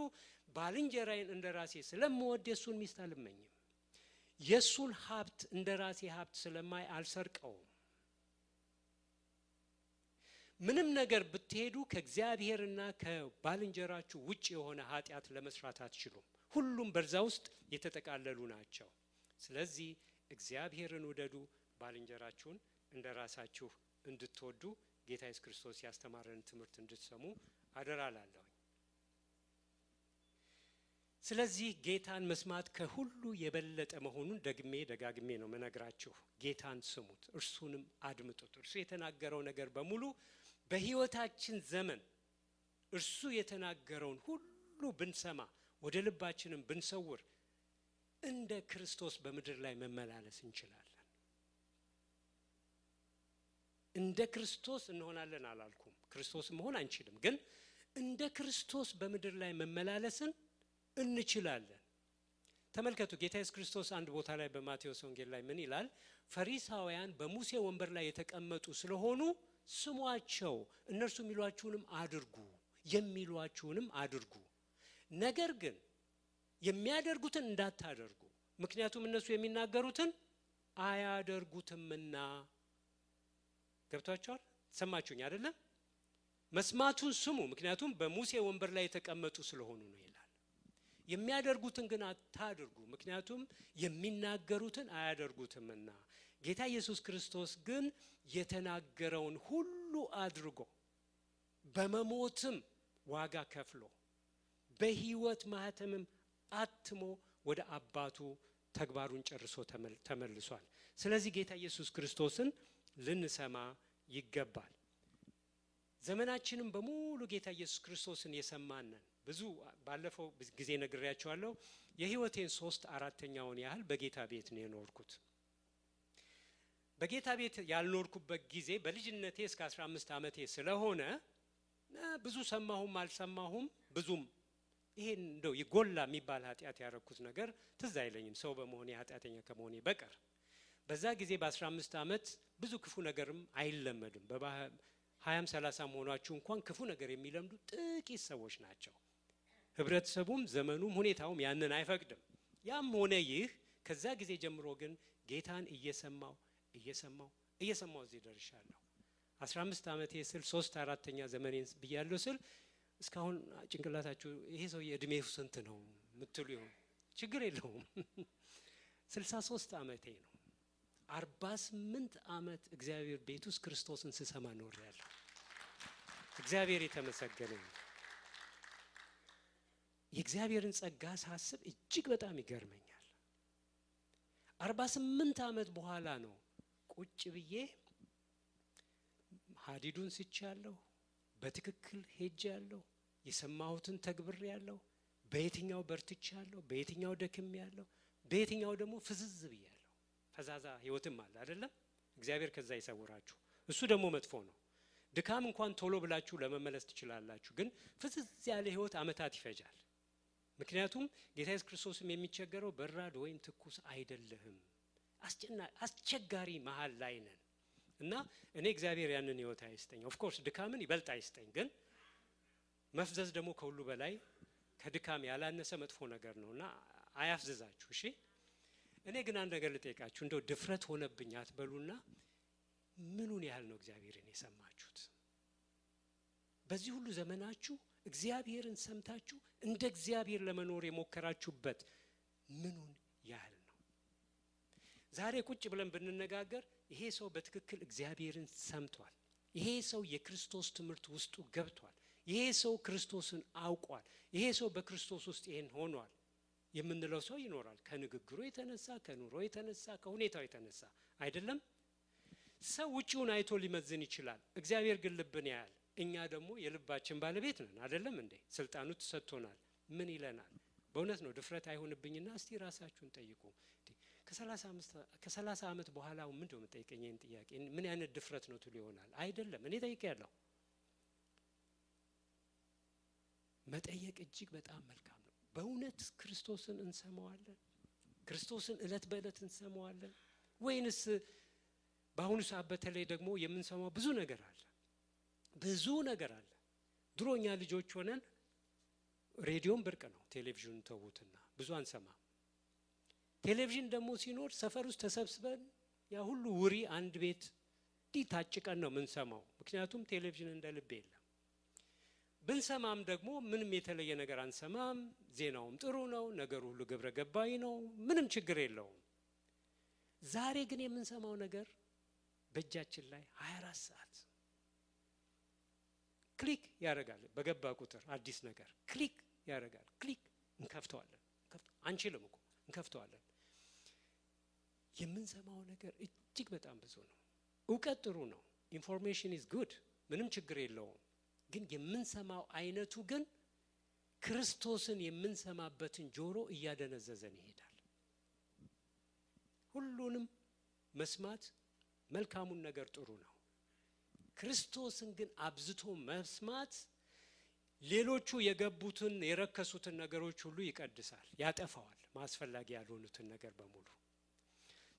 ባልንጀራዬን እንደራሴ ስለምወድ የሱን ሚስት አልመኝም፣ የሱን ሀብት እንደራሴ ሀብት ስለማይ አልሰርቀውም። ምንም ነገር ብትሄዱ ከእግዚአብሔርና ከባልንጀራችሁ ውጭ የሆነ ኃጢአት ለመስራት አትችሉም። ሁሉም በዛ ውስጥ የተጠቃለሉ ናቸው። ስለዚህ እግዚአብሔርን ውደዱ፣ ባልንጀራችሁን እንደራሳችሁ እንድትወዱ ጌታ ኢየሱስ ክርስቶስ ያስተማረን ትምህርት እንድትሰሙ አደራላለሁ። ስለዚህ ጌታን መስማት ከሁሉ የበለጠ መሆኑን ደጋግሜ ነው መነግራችሁ። ጌታን ስሙት፣ እርሱንም አድምጡት። እርሱ የተናገረው ነገር በሙሉ በሕይወታችን ዘመን እርሱ የተናገረውን ሁሉ ብንሰማ፣ ወደ ልባችንም ብንሰውር እንደ ክርስቶስ በምድር ላይ መመላለስ እንችላለን። እንደ ክርስቶስ እንሆናለን አላልኩም፣ ክርስቶስ መሆን አንችልም፣ ግን እንደ ክርስቶስ በምድር ላይ መመላለስን እንችላለን። ተመልከቱ፣ ጌታ ኢየሱስ ክርስቶስ አንድ ቦታ ላይ በማቴዎስ ወንጌል ላይ ምን ይላል? ፈሪሳውያን በሙሴ ወንበር ላይ የተቀመጡ ስለሆኑ ስሟቸው፣ እነርሱ የሚሏችሁንም አድርጉ፣ ነገር ግን የሚያደርጉትን እንዳታደርጉ፣ ምክንያቱም እነሱ የሚናገሩትን አያደርጉትምና። ገብቷችኋል? ሰማችሁኝ አይደለም? መስማቱን ስሙ፣ ምክንያቱም በሙሴ ወንበር ላይ የተቀመጡ ስለሆኑ ነው ይላል። የሚያደርጉትን ግን አታድርጉ፣ ምክንያቱም የሚናገሩትን አያደርጉትምና። ጌታ ኢየሱስ ክርስቶስ ግን የተናገረውን ሁሉ አድርጎ በመሞትም ዋጋ ከፍሎ በሕይወት ማህተምም አትሞ ወደ አባቱ ተግባሩን ጨርሶ ተመልሷል። ስለዚህ ጌታ ኢየሱስ ክርስቶስን ልንሰማ ይገባል። ዘመናችንም በሙሉ ጌታ ኢየሱስ ክርስቶስን የሰማነን ብዙ ባለፈው ጊዜ ነግሬያችኋለሁ። የሕይወቴን 3/4 ያህል በጌታ ቤት ነው የኖርኩት። በጌታ ቤት ያልኖርኩበት ጊዜ በልጅነቴ እስከ 15 ዓመቴ ስለሆነ ብዙ ሰማሁም አልሰማሁም ብዙም ይሄን እንደው ይጎላ የሚባል ኃጢአት ያረኩት ነገር ትዝ አይለኝም፣ ሰው በመሆኔ ኃጢአተኛ ከመሆኔ በቀር። በዛ ጊዜ በ15 ዓመት ብዙ ክፉ ነገርም አይለመድም። 20 30 መሆናችሁ እንኳን ክፉ ነገር የሚለምዱ ጥቂት ሰዎች ናቸው። ህብረተሰቡም ዘመኑም ሁኔታውም ያንን አይፈቅድም። ያም ሆነ ይህ ከዛ ጊዜ ጀምሮ ግን ጌታን እየሰማው እዚህ ደርሻለሁ። 15 ዓመቴ ስል 3/4ኛ ዘመኔን ብያለሁ ስል እስካሁን ጭንቅላታችሁ ይሄ ሰው የእድሜው ስንት ነው ምትሉ ይሆን? ችግር የለውም 63 ዓመቴ ነው። 48 ዓመት እግዚአብሔር ቤት ውስጥ ክርስቶስን ስሰማ ኖሬያለሁ። እግዚአብሔር የተመሰገነ ይሁን። የእግዚአብሔርን ጸጋ ሳስብ እጅግ በጣም ይገርመኛል። 48 ዓመት በኋላ ነው ቁጭ ብዬ ሀዲዱን ስቻለሁ፣ በትክክል ሄጃለሁ፣ የሰማሁትን ተግብሬያለሁ፣ በየትኛው በርትቻለሁ፣ በየትኛው ደክሜያለሁ፣ በየትኛው ደግሞ ፍዝዝ ብያለሁ። ፈዛዛ ህይወትም አለ አይደለም? እግዚአብሔር ከዛ ይሰውራችሁ። እሱ ደግሞ መጥፎ ነው። ድካም እንኳን ቶሎ ብላችሁ ለመመለስ ትችላላችሁ፣ ግን ፍዝዝ ያለ ህይወት አመታት ይፈጃል። ምክንያቱም ጌታ ኢየሱስ ክርስቶስም የሚቸገረው በራድ ወይም ትኩስ አይደለህም፣ አስቸጋሪ መሃል ላይ ነን እና እኔ እግዚአብሔር ያንን ህይወት አይስጠኝ። ኦፍ ኮርስ ድካምን ይበልጥ አይስጠኝ፣ ግን መፍዘዝ ደግሞ ከሁሉ በላይ ከድካም ያላነሰ መጥፎ ነገር ነውና አያፍዝዛችሁ። እሺ እኔ ግን አንድ ነገር ልጠይቃችሁ፣ እንደው ድፍረት ሆነብኝ አትበሉና ምኑን ያህል ነው እግዚአብሔርን የሰማችሁት? በዚህ ሁሉ ዘመናችሁ እግዚአብሔርን ሰምታችሁ እንደ እግዚአብሔር ለመኖር የሞከራችሁበት ምኑን ያህል ነው? ዛሬ ቁጭ ብለን ብንነጋገር ይሄ ሰው በትክክል እግዚአብሔርን ሰምቷል፣ ይሄ ሰው የክርስቶስ ትምህርት ውስጡ ገብቷል፣ ይሄ ሰው ክርስቶስን አውቋል፣ ይሄ ሰው በክርስቶስ ውስጥ ይሄን ሆኗል የምንለው ሰው ይኖራል። ከንግግሩ የተነሳ፣ ከኑሮ የተነሳ፣ ከሁኔታው የተነሳ አይደለም? ሰው ውጪውን አይቶ ሊመዝን ይችላል፣ እግዚአብሔር ግን ልብን ያያል። እኛ ደግሞ የልባችን ባለቤት ነን አይደለም እንዴ? ስልጣኑ ተሰጥቶናል። ምን ይለናል? በእውነት ነው ድፍረት አይሆንብኝና እስቲ ራሳችሁን ጠይቁ። ከ30 ዓመት በኋላ ምንድነው የምጠይቀኝ ይሄን ጥያቄ? ምን አይነት ድፍረት ነው ትሉ ይሆናል። አይደለም እኔ ጠይቄያለሁ። መጠየቅ እጅግ በጣም መልካም ነው። በእውነት ክርስቶስን እንሰማዋለን? ክርስቶስን እለት በእለት እንሰማዋለን ወይንስ በአሁኑ ሰዓት በተለይ ደግሞ የምንሰማው ብዙ ነገር አለ፣ ብዙ ነገር አለ። ድሮኛ ልጆች ሆነን ሬዲዮን ብርቅ ነው፣ ቴሌቪዥን ተውትና ብዙ አንሰማም። ቴሌቪዥን ደግሞ ሲኖር ሰፈር ውስጥ ተሰብስበን ያ ሁሉ ውሪ አንድ ቤት ዲታጭቀን ነው የምንሰማው፣ ምክንያቱም ቴሌቪዥን እንደ ልብ የለም። ብንሰማም ደግሞ ምንም የተለየ ነገር አንሰማም። ዜናውም ጥሩ ነው፣ ነገሩ ሁሉ ግብረ ገባይ ነው፣ ምንም ችግር የለውም። ዛሬ ግን የምንሰማው ነገር በእጃችን ላይ 24 ሰዓት ክሊክ ያደርጋል። በገባ ቁጥር አዲስ ነገር ክሊክ ያደርጋል። ክሊክ እንከፍተዋለን። አንችልም እኮ እንከፍተዋለን። የምንሰማው ነገር እጅግ በጣም ብዙ ነው። እውቀት ጥሩ ነው፣ ኢንፎርሜሽን ኢዝ ጉድ፣ ምንም ችግር የለውም። ግን የምንሰማው አይነቱ ግን ክርስቶስን የምንሰማበትን ጆሮ እያደነዘዘን ይሄዳል። ሁሉንም መስማት መልካሙን ነገር ጥሩ ነው። ክርስቶስን ግን አብዝቶ መስማት ሌሎቹ የገቡትን የረከሱትን ነገሮች ሁሉ ይቀድሳል፣ ያጠፋዋል፣ ማስፈላጊ ያልሆኑትን ነገር በሙሉ።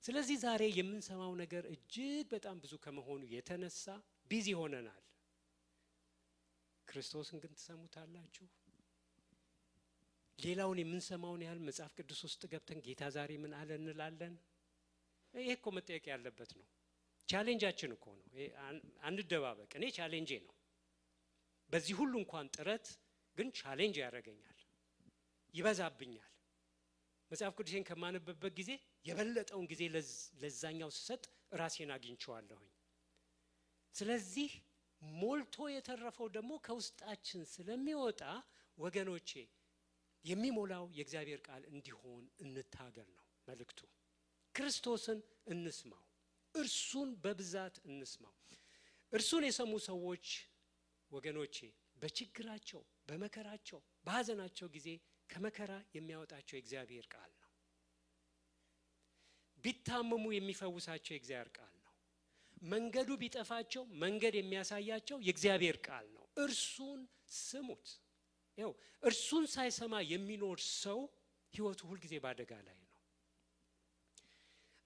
ስለዚህ ዛሬ የምንሰማው ነገር እጅግ በጣም ብዙ ከመሆኑ የተነሳ ቢዚ ሆነናል። ክርስቶስን ግን ትሰሙታላችሁ? ሌላውን የምንሰማውን ያህል መጽሐፍ ቅዱስ ውስጥ ገብተን ጌታ ዛሬ ምን አለ እንላለን? ይሄ እኮ መጠየቅ ያለበት ነው። ቻሌንጃችን እኮ ነው። አንደባበቅ። እኔ ቻሌንጄ ነው። በዚህ ሁሉ እንኳን ጥረት ግን ቻሌንጅ ያደርገኛል፣ ይበዛብኛል። መጽሐፍ ቅዱስን ከማነበበት ጊዜ የበለጠውን ጊዜ ለዛኛው ስሰጥ ራሴን አግኝቼዋለሁኝ። ስለዚህ ሞልቶ የተረፈው ደግሞ ከውስጣችን ስለሚወጣ ወገኖቼ የሚሞላው የእግዚአብሔር ቃል እንዲሆን እንታገል ነው መልእክቱ። ክርስቶስን እንስማው፣ እርሱን በብዛት እንስማው። እርሱን የሰሙ ሰዎች ወገኖቼ በችግራቸው፣ በመከራቸው፣ በሐዘናቸው ጊዜ ከመከራ የሚያወጣቸው የእግዚአብሔር ቃል ነው። ቢታመሙ የሚፈውሳቸው የእግዚአብሔር ቃል ነው። መንገዱ ቢጠፋቸው መንገድ የሚያሳያቸው የእግዚአብሔር ቃል ነው። እርሱን ስሙት። ይኸው እርሱን ሳይሰማ የሚኖር ሰው ህይወቱ ሁሉ ጊዜ ባደጋ ላይ ነው።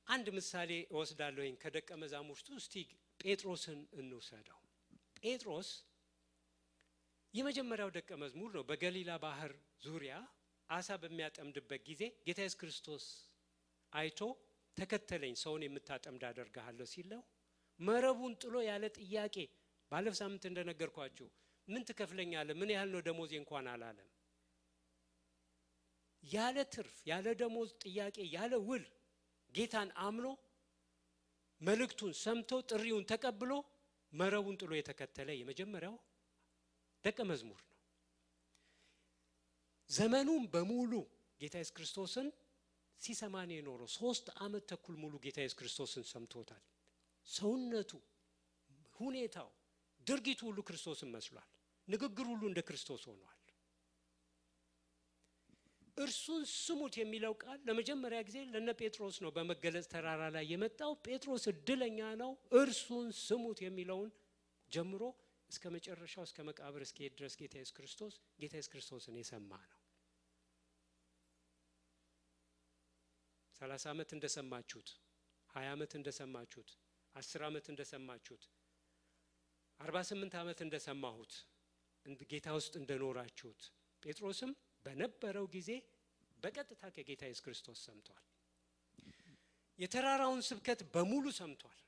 አንድ ምሳሌ እወስዳለሁኝ ከደቀ መዛሙርቱ። እስቲ ጴጥሮስን እንውሰደው። ጴጥሮስ የመጀመሪያው ደቀ መዝሙር ነው። በገሊላ ባህር ዙሪያ አሳ በሚያጠምድበት ጊዜ ጌታ ኢየሱስ ክርስቶስ አይቶ ተከተለኝ ሰውን የምታጠምድ አደርግሃለሁ ሲለው መረቡን ጥሎ ያለ ጥያቄ ባለፈው ሳምንት እንደነገርኳችሁ ምን ትከፍለኛለህ ምን ያህል ነው ደሞዜ እንኳን አላለም። ያለ ትርፍ ያለ ደሞዝ ጥያቄ ያለ ውል ጌታን አምኖ መልእክቱን ሰምቶ ጥሪውን ተቀብሎ መረቡን ጥሎ የተከተለ የመጀመሪያው ደቀ መዝሙር ነው። ዘመኑን በሙሉ ጌታ ኢየሱስ ክርስቶስን ሲሰማን የኖረው 3 ዓመት ተኩል ሙሉ ጌታ ኢየሱስ ክርስቶስን ሰምቶታል። ሰውነቱ ሁኔታው ድርጊቱ ሁሉ ክርስቶስን መስሏል። ንግግሩ ሁሉ እንደ ክርስቶስ ሆኗል። እርሱን ስሙት የሚለው ቃል ለመጀመሪያ ጊዜ ለነ ጴጥሮስ ነው በመገለጽ ተራራ ላይ የመጣው። ጴጥሮስ እድለኛ ነው እርሱን ስሙት የሚለውን ጀምሮ እስከ መጨረሻው እስከ መቃብር እስከ ድረስ ጌታ ኢየሱስ ክርስቶስን የሰማ ነው። 30 ዓመት እንደሰማችሁት 20 ዓመት እንደሰማችሁት 10 ዓመት እንደሰማችሁት 48 ዓመት እንደሰማሁት ጌታ ውስጥ እንደኖራችሁት ጴጥሮስም በነበረው ጊዜ በቀጥታ ከጌታ ኢየሱስ ክርስቶስ ሰምቷል። የተራራውን ስብከት በሙሉ ሰምቷል።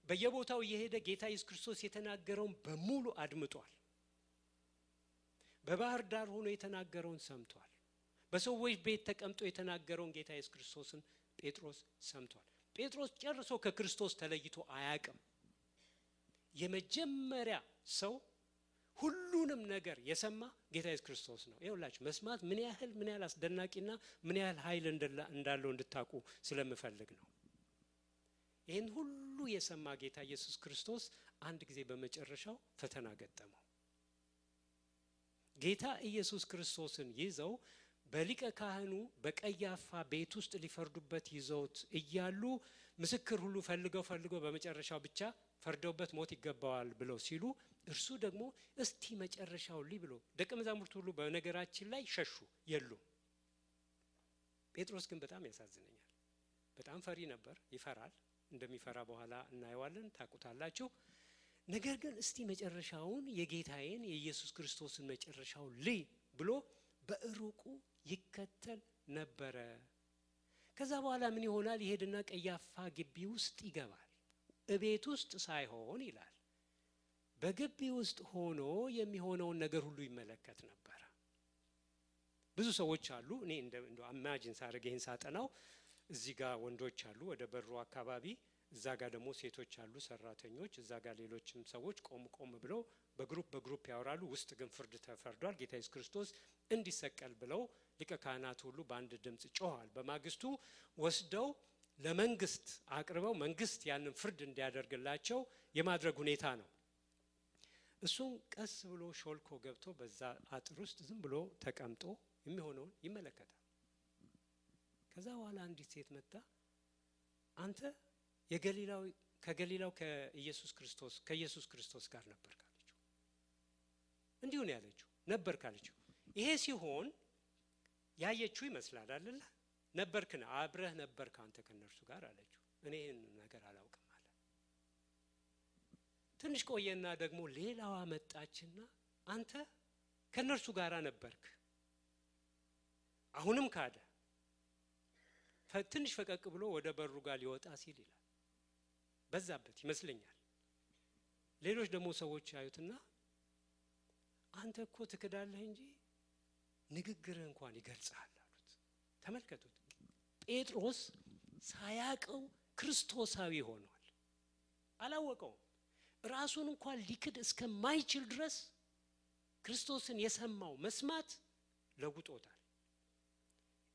በየቦታው የሄደ ጌታ ኢየሱስ ክርስቶስ የተናገረውን በሙሉ አድምጧል። በባህር ዳር ሆኖ የተናገረውን ሰምቷል። በሰዎች ቤት ተቀምጦ የተናገረውን ጌታ ኢየሱስ ክርስቶስን ጴጥሮስ ሰምቷል። ጴጥሮስ ጨርሶ ከክርስቶስ ተለይቶ አያውቅም። የመጀመሪያ ሰው ሁሉንም ነገር የሰማ ጌታ ኢየሱስ ክርስቶስ ነው። ይኸውላችሁ መስማት ምን ያህል አስደናቂና ምን ያህል ኃይል እንዳለው እንድታቁ ስለምፈልግ ነው። ይሄን ሁሉ የሰማ ጌታ ኢየሱስ ክርስቶስ አንድ ጊዜ በመጨረሻው ፈተና ገጠመው። ጌታ ኢየሱስ ክርስቶስን ይዘው በሊቀ ካህኑ በቀያፋ ቤት ውስጥ ሊፈርዱበት ይዘውት እያሉ ምስክር ሁሉ ፈልገው በመጨረሻው ብቻ ፈርደውበት ሞት ይገባዋል ብለው ሲሉ እርሱ ደግሞ እስቲ መጨረሻው ብሎ ደቀ መዛሙርቱ ሁሉ በነገራችን ላይ ሸሹ የሉም። ጴጥሮስ ግን በጣም ያሳዝነኛል። በጣም ፈሪ ነበር፣ ይፈራል። እንደሚፈራ በኋላ እናየዋለን ታቁታላችሁ። ነገር ግን እስቲ መጨረሻውን የጌታዬን የኢየሱስ ክርስቶስን መጨረሻው ብሎ በእሩቁ ይከተል ነበረ። ከዛ በኋላ ምን ይሆናል? ይሄድና ቀያፋ ግቢ ውስጥ ይገባል። እቤት ውስጥ ሳይሆን ይላል በግቢ ውስጥ ሆኖ የሚሆነውን ነገር ሁሉ ይመለከት ነበር። ብዙ ሰዎች አሉ። እኔ እንደው ኢማጂን ሳደርግ ይሄን ሳጠናው እዚህ ጋር ወንዶች አሉ ወደ በሩ አካባቢ፣ እዛ ጋር ደግሞ ሴቶች አሉ ሰራተኞች፣ እዛ ጋር ሌሎችም ሰዎች ቆም ብለው በግሩፕ ያወራሉ። ውስጥ ግን ፍርድ ተፈርዷል። ጌታ ኢየሱስ ክርስቶስ እንዲሰቀል ብለው ሊቀ ካህናት ሁሉ በአንድ ድምጽ ጮሃል። በማግስቱ ወስደው ለመንግስት አቅርበው መንግስት ያንን ፍርድ እንዲያደርግላቸው የማድረግ ሁኔታ ነው። እሱም ቀስ ብሎ ሾልኮ ገብቶ በዛ አጥር ውስጥ ዝም ብሎ ተቀምጦ የሚሆነውን ይመለከታል። ከዛ በኋላ አንዲት ሴት መጣ፣ አንተ ከገሊላው ከኢየሱስ ክርስቶስ ጋር ነበር ካለችው። እንዲሁ ነው ያለችው፣ ነበር ካለችው። ይሄ ሲሆን ያየችው ይመስላል አይደል? ነበርክና አብረህ ነበርክ አንተ ከነርሱ ጋር አለችው። እኔ ይሄን ነገር አላውቅም አለ። ትንሽ ቆየና ደግሞ ሌላዋ መጣችና አንተ ከነርሱ ጋር ነበርክ፣ አሁንም ካደ። ትንሽ ፈቀቅ ብሎ ወደ በሩ ጋር ሊወጣ ሲል ይላል በዛበት ይመስለኛል። ሌሎች ደግሞ ሰዎች ያዩትና አንተ እኮ ትክዳለህ እንጂ ንግግርህ እንኳን ይገልጻል አሉት። ተመልከቱት፣ ጴጥሮስ ሳያቀው ክርስቶሳዊ ሆኗል። አላወቀውም። ራሱን እንኳን ሊክድ እስከማይችል ድረስ ክርስቶስን የሰማው መስማት ለውጦታል።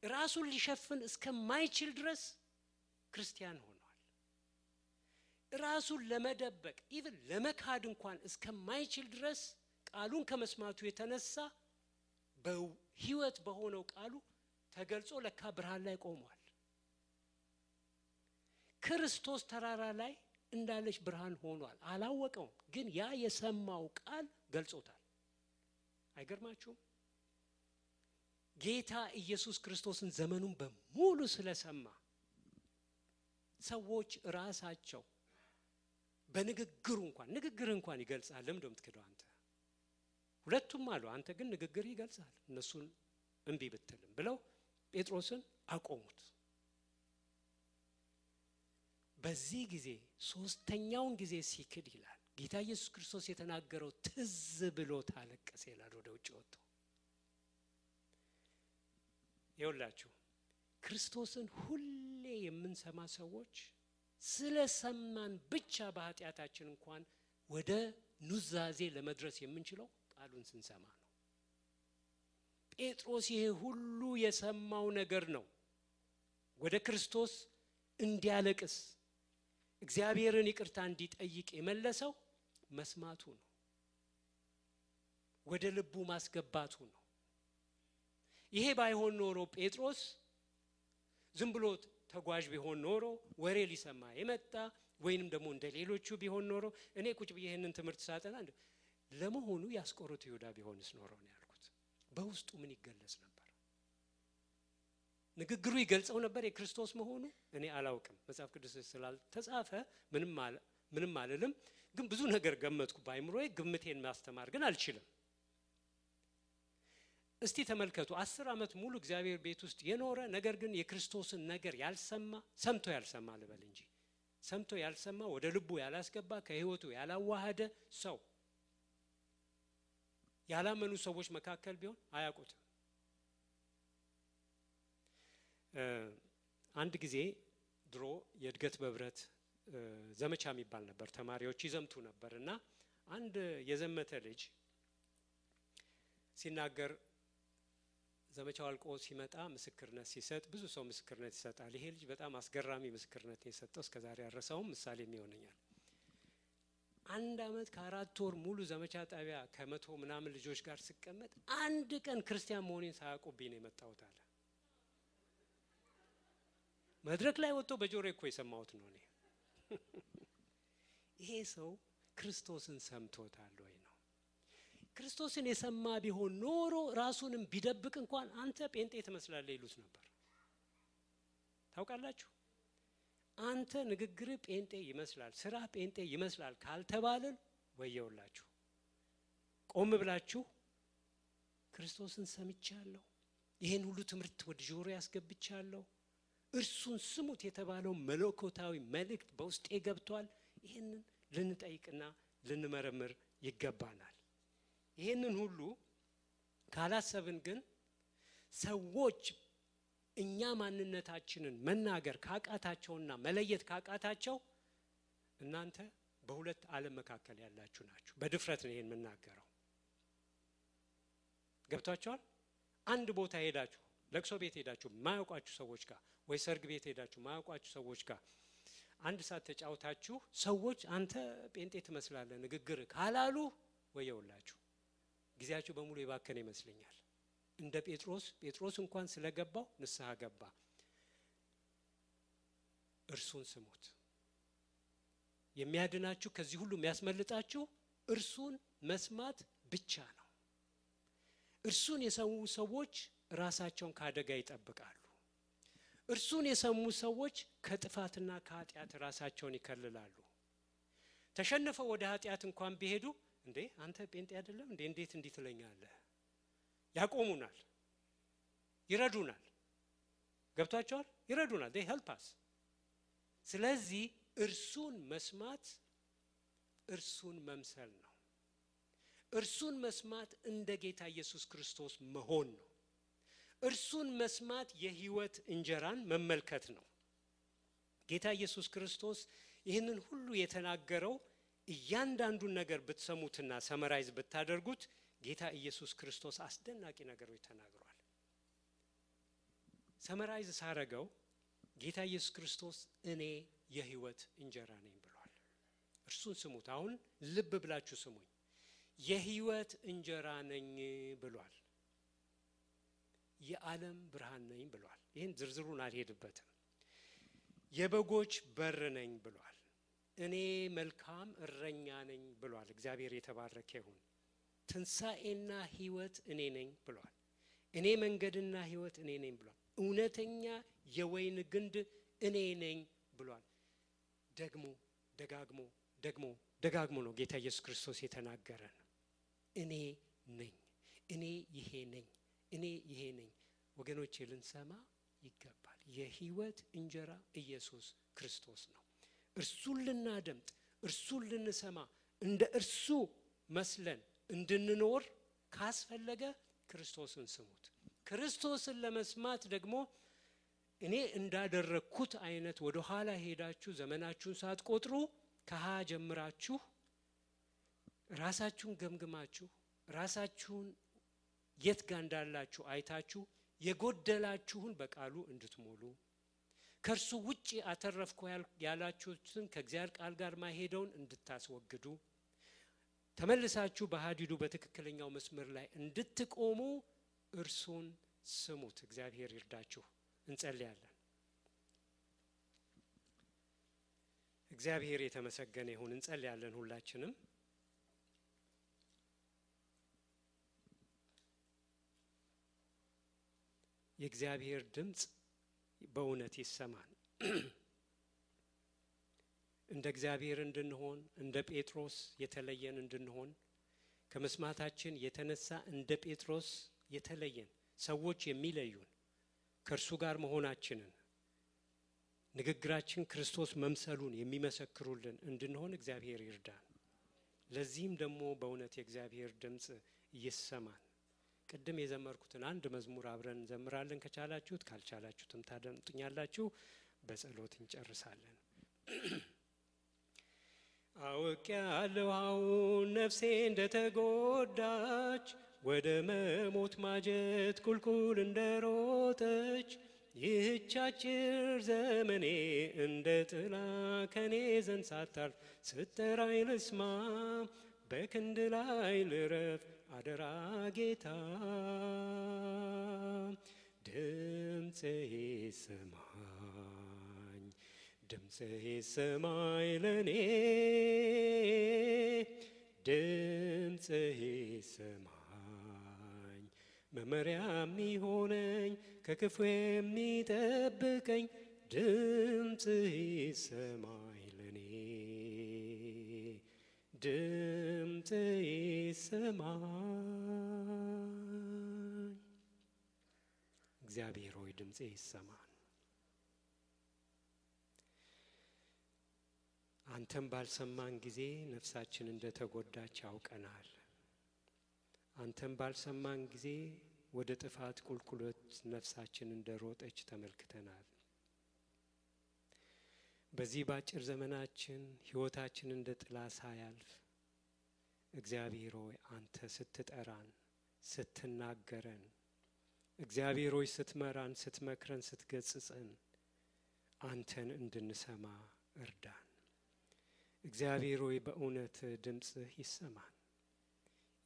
ራሱን ሊሸፍን እስከማይችል ድረስ ክርስቲያን ሆኗል። ራሱን ለመደበቅ ኢቭን ለመካድ እንኳን እስከማይችል ድረስ ቃሉን ከመስማቱ የተነሳ በህይወት በሆነው ቃሉ ተገልጾ ለካ ብርሃን ላይ ቆሟል። ክርስቶስ ተራራ ላይ እንዳለች ብርሃን ሆኗል። አላወቀውም፣ ግን ያ የሰማው ቃል ገልጾታል። አይገርማችሁም? ጌታ ኢየሱስ ክርስቶስን ዘመኑን በሙሉ ስለሰማ ሰዎች ራሳቸው በንግግሩ እንኳን ይገልጻል። ለምን እንደምትከደው አንተ ሁለቱም አሉ። አንተ ግን ንግግር ይገልጻል እነሱን እንቢ ብትልም ብለው ጴጥሮስን አቆሙት። በዚህ ጊዜ ሶስተኛውን ጊዜ ሲክድ ይላል ጌታ ኢየሱስ ክርስቶስ የተናገረው ትዝ ብሎት አለቀሰ ይላል። ወደ ውጭ ወጥቶ ይውላችሁ ክርስቶስን ሁሌ የምንሰማ ሰዎች ስለሰማን ብቻ በኃጢአታችን እንኳን ወደ ኑዛዜ ለመድረስ የምንችለው ቃሉን ስንሰማ ነው። ጴጥሮስ ይሄ ሁሉ የሰማው ነገር ነው ወደ ክርስቶስ እንዲያለቅስ እግዚአብሔርን ይቅርታ እንዲጠይቅ የመለሰው መስማቱ ነው። ወደ ልቡ ማስገባቱ ነው። ይሄ ባይሆን ኖሮ ጴጥሮስ ዝም ብሎ ተጓዥ ቢሆን ኖሮ ወሬ ሊሰማ የመጣ ወይንም ደግሞ እንደሌሎቹ ቢሆን ኖሮ እኔ ቁጭ ብዬ ይሄንን ትምህርት ሳጠና ለመሆኑ ያስቆሮቱ ይሁዳ ቢሆንስ ኖሮ ነው ያልኩት። በውስጡ ምን ይገለጽ ነበር? ንግግሩ ይገልጸው ነበር የክርስቶስ መሆኑ? እኔ አላውቅም። መጽሐፍ ቅዱስ ስላልተጻፈ ምንም አልልም። ግን ብዙ ነገር ገመትኩ ባይምሮዬ። ግምቴን ማስተማር ግን አልችልም። እስቲ ተመልከቱ 10 ዓመት ሙሉ እግዚአብሔር ቤት ውስጥ የኖረ ነገር ግን የክርስቶስን ነገር ያልሰማ ሰምቶ ያልሰማ ልበል እንጂ ሰምቶ ያልሰማ ወደ ልቡ ያላስገባ ከህይወቱ ያላዋሃደ ሰው ያላመኑ ሰዎች መካከል ቢሆን አያውቁትም። አንድ ጊዜ ድሮ የእድገት በብረት ዘመቻ የሚባል ነበር። ተማሪዎች ይዘምቱ ነበርና አንድ የዘመተ ልጅ ሲናገር ዘመቻው አልቆ ሲመጣ ምስክርነት ሲሰጥ ብዙ ሰው ምስክርነት ይሰጣል። ይሄ ልጅ በጣም አስገራሚ ምስክርነት የሰጠው እስከዛሬ ያረሳውም ምሳሌ የሚሆነኛል። 1 ዓመት ከ4 ወር ሙሉ ዘመቻ ጣቢያ ከመቶ ምናምን ልጆች ጋር ሲቀመጥ አንድ ቀን ክርስቲያን መሆኔን ሳያውቁብኝ ነው የመጣሁት አለ። መድረክ ላይ ወጥቶ በጆሮዬ እኮ የሰማሁት ነው እኔ። ይሄ ሰው ክርስቶስን ሰምቶታል ወይ ነው? ክርስቶስን የሰማ ቢሆን ኖሮ ራሱንም ቢደብቅ እንኳን አንተ ጴንጤ ትመስላለህ ይሉት ነበር። ታውቃላችሁ? አንተ ንግግር ጴንጤ ይመስላል፣ ስራ ጴንጤ ይመስላል ካልተባለን ወየውላችሁ። ቆም ብላችሁ ክርስቶስን ሰምቻለሁ፣ ይሄን ሁሉ ትምህርት ወደ ጆሮ ያስገብቻለሁ፣ እርሱን ስሙት የተባለው መለኮታዊ መልእክት በውስጤ ገብቷል። ይሄንን ልንጠይቅና ልንመረምር ይገባናል። ይሄንን ሁሉ ካላሰብን ግን ሰዎች እኛ ማንነታችንን መናገር ካቃታቸውና መለየት ካቃታቸው እናንተ በሁለት ዓለም መካከል ያላችሁ ናችሁ። በድፍረት ነው ይሄን መናገረው። ገብታችኋል? አንድ ቦታ ሄዳችሁ ለቅሶ ቤት ሄዳችሁ ማያውቋችሁ ሰዎች ጋር ወይ ሰርግ ቤት ሄዳችሁ ማያውቋችሁ ሰዎች ጋር አንድ ሰዓት ተጫውታችሁ ሰዎች አንተ ጴንጤ ትመስላለህ ንግግር ካላሉ ወየውላችሁ ጊዜያችሁ በሙሉ የባከነ ይመስለኛል። እንደ ጴጥሮስ እንኳን ስለገባው ንስሐ ገባ። እርሱን ስሙት። የሚያድናችሁ ከዚህ ሁሉ የሚያስመልጣችሁ እርሱን መስማት ብቻ ነው። እርሱን የሰሙ ሰዎች ራሳቸውን ካደጋ ይጠብቃሉ። እርሱን የሰሙ ሰዎች ከጥፋትና ከኃጢአት ራሳቸውን ይከልላሉ። ተሸነፈው ወደ ኃጢአት እንኳን ቢሄዱ እንዴ አንተ ጴንጤ አይደለም እንዴ እንዴት እንዲት ለኛለህ ያቆሙናል፣ ይረዱናል። ገብቷቸዋል? ይረዱናል። they help us። ስለዚህ እርሱን መስማት እርሱን መምሰል ነው። እርሱን መስማት እንደ ጌታ ኢየሱስ ክርስቶስ መሆን ነው። እርሱን መስማት የህይወት እንጀራን መመልከት ነው። ጌታ ኢየሱስ ክርስቶስ ይህንን ሁሉ የተናገረው እያንዳንዱን ነገር ብትሰሙትና ሰመራይዝ ብታደርጉት ጌታ ኢየሱስ ክርስቶስ አስደናቂ ነገሮች ተናግሯል። ሰመራይዝ ሳረገው ጌታ ኢየሱስ ክርስቶስ እኔ የህይወት እንጀራ ነኝ ብሏል። እርሱን ስሙት። አሁን ልብ ብላችሁ ስሙኝ። የህይወት እንጀራ ነኝ ብሏል። የዓለም ብርሃን ነኝ ብሏል። ይሄን ዝርዝሩን አልሄድበትም። የበጎች በር ነኝ ብሏል። እኔ መልካም እረኛ ነኝ ብሏል። እግዚአብሔር የተባረከ ይሁን። ትንሣኤና ህይወት እኔ ነኝ ብሏል። እኔ መንገድና ህይወት እኔ ነኝ ብሏል። እውነተኛ የወይን ግንድ እኔ ነኝ ብሏል። ደግሞ ደግሞ ደጋግሞ ነው ጌታ ኢየሱስ ክርስቶስ የተናገረን። እኔ ነኝ፣ እኔ ይሄ ነኝ፣ እኔ ይሄ ነኝ። ወገኖቼ ልንሰማ ይገባል። የህይወት እንጀራ ኢየሱስ ክርስቶስ ነው። እርሱን ልናደምጥ፣ እርሱን ልንሰማ፣ እንደ እርሱ መስለን እንድንኖር ካስፈለገ ክርስቶስን ስሙት። ክርስቶስን ለመስማት ደግሞ እኔ እንዳደረኩት አይነት ወደ ኋላ ሄዳችሁ ዘመናችሁን ሳትቆጥሩ ከሃ ጀምራችሁ ራሳችሁን ገምግማችሁ ራሳችሁን የት ጋር እንዳላችሁ አይታችሁ የጎደላችሁን በቃሉ እንድትሞሉ ከርሱ ውጪ አተረፍኩ ያላችሁትን ከእግዚአብሔር ቃል ጋር ማይሄደውን እንድታስወግዱ ተመልሳችሁ በሐዲዱ በትክክለኛው መስመር ላይ እንድትቆሙ እርሱን ስሙት። እግዚአብሔር ይርዳችሁ። እንጸልያለን። እግዚአብሔር የተመሰገነ ይሁን። እንጸልያለን ሁላችንም። የእግዚአብሔር ድምጽ በእውነት ይሰማል። እንደ እግዚአብሔር እንድንሆን እንደ ጴጥሮስ የተለየን እንድንሆን ከመስማታችን የተነሳ እንደ ጴጥሮስ የተለየን ሰዎች የሚለዩን ከእርሱ ጋር መሆናችንን ንግግራችን ክርስቶስ መምሰሉን የሚመሰክሩልን እንድንሆን እግዚአብሔር ይርዳን። ለዚህም ደግሞ በእውነት የእግዚአብሔር ድምጽ ይሰማል። ቅድም የዘመርኩትን አንድ መዝሙር አብረን እንዘምራለን። ከቻላችሁት፣ ካልቻላችሁትም ታደምጡኛላችሁ። በጸሎት እንጨርሳለን። አውቄአለሁ አሁን ነፍሴ እንደተጎዳች ወደ መሞት ማጀት ቁልቁል እንደሮጠች ይህች አጭር ዘመኔ እንደ ጥላ ከኔ ዘንድ ሳታልፍ ስትጠራኝ ልስማ በክንድ ላይ ልረፍ አደራ ጌታ ድምፅህ ይሰማኝ ድምፅህ ይሰማኝ ለኔ ድምፅህ ይሰማኝ መመሪያ የሚሆነኝ ከክፉ የሚጠብቀኝ ድምፅህ ይሰማኝ ለኔ ድምፅህ ይሰማኝ። እግዚአብሔር ሆይ ድምፅህ ይሰማን። አንተም ባልሰማን ጊዜ ነፍሳችን እንደተጎዳች ያውቀናል። አንተም ባልሰማን ጊዜ ወደ ጥፋት ቁልቁለት ነፍሳችን እንደሮጠች ተመልክተናል። በዚህ ባጭር ዘመናችን ህይወታችን እንደ ጥላ ሳያልፍ እግዚአብሔር ሆይ አንተ ስትጠራን ስትናገረን እግዚአብሔር ሆይ ስትመራን ስትመክረን ስትገጽጸን አንተን እንድንሰማ እርዳን። እግዚአብሔር ሆይ በእውነት ድምፅህ ይሰማን።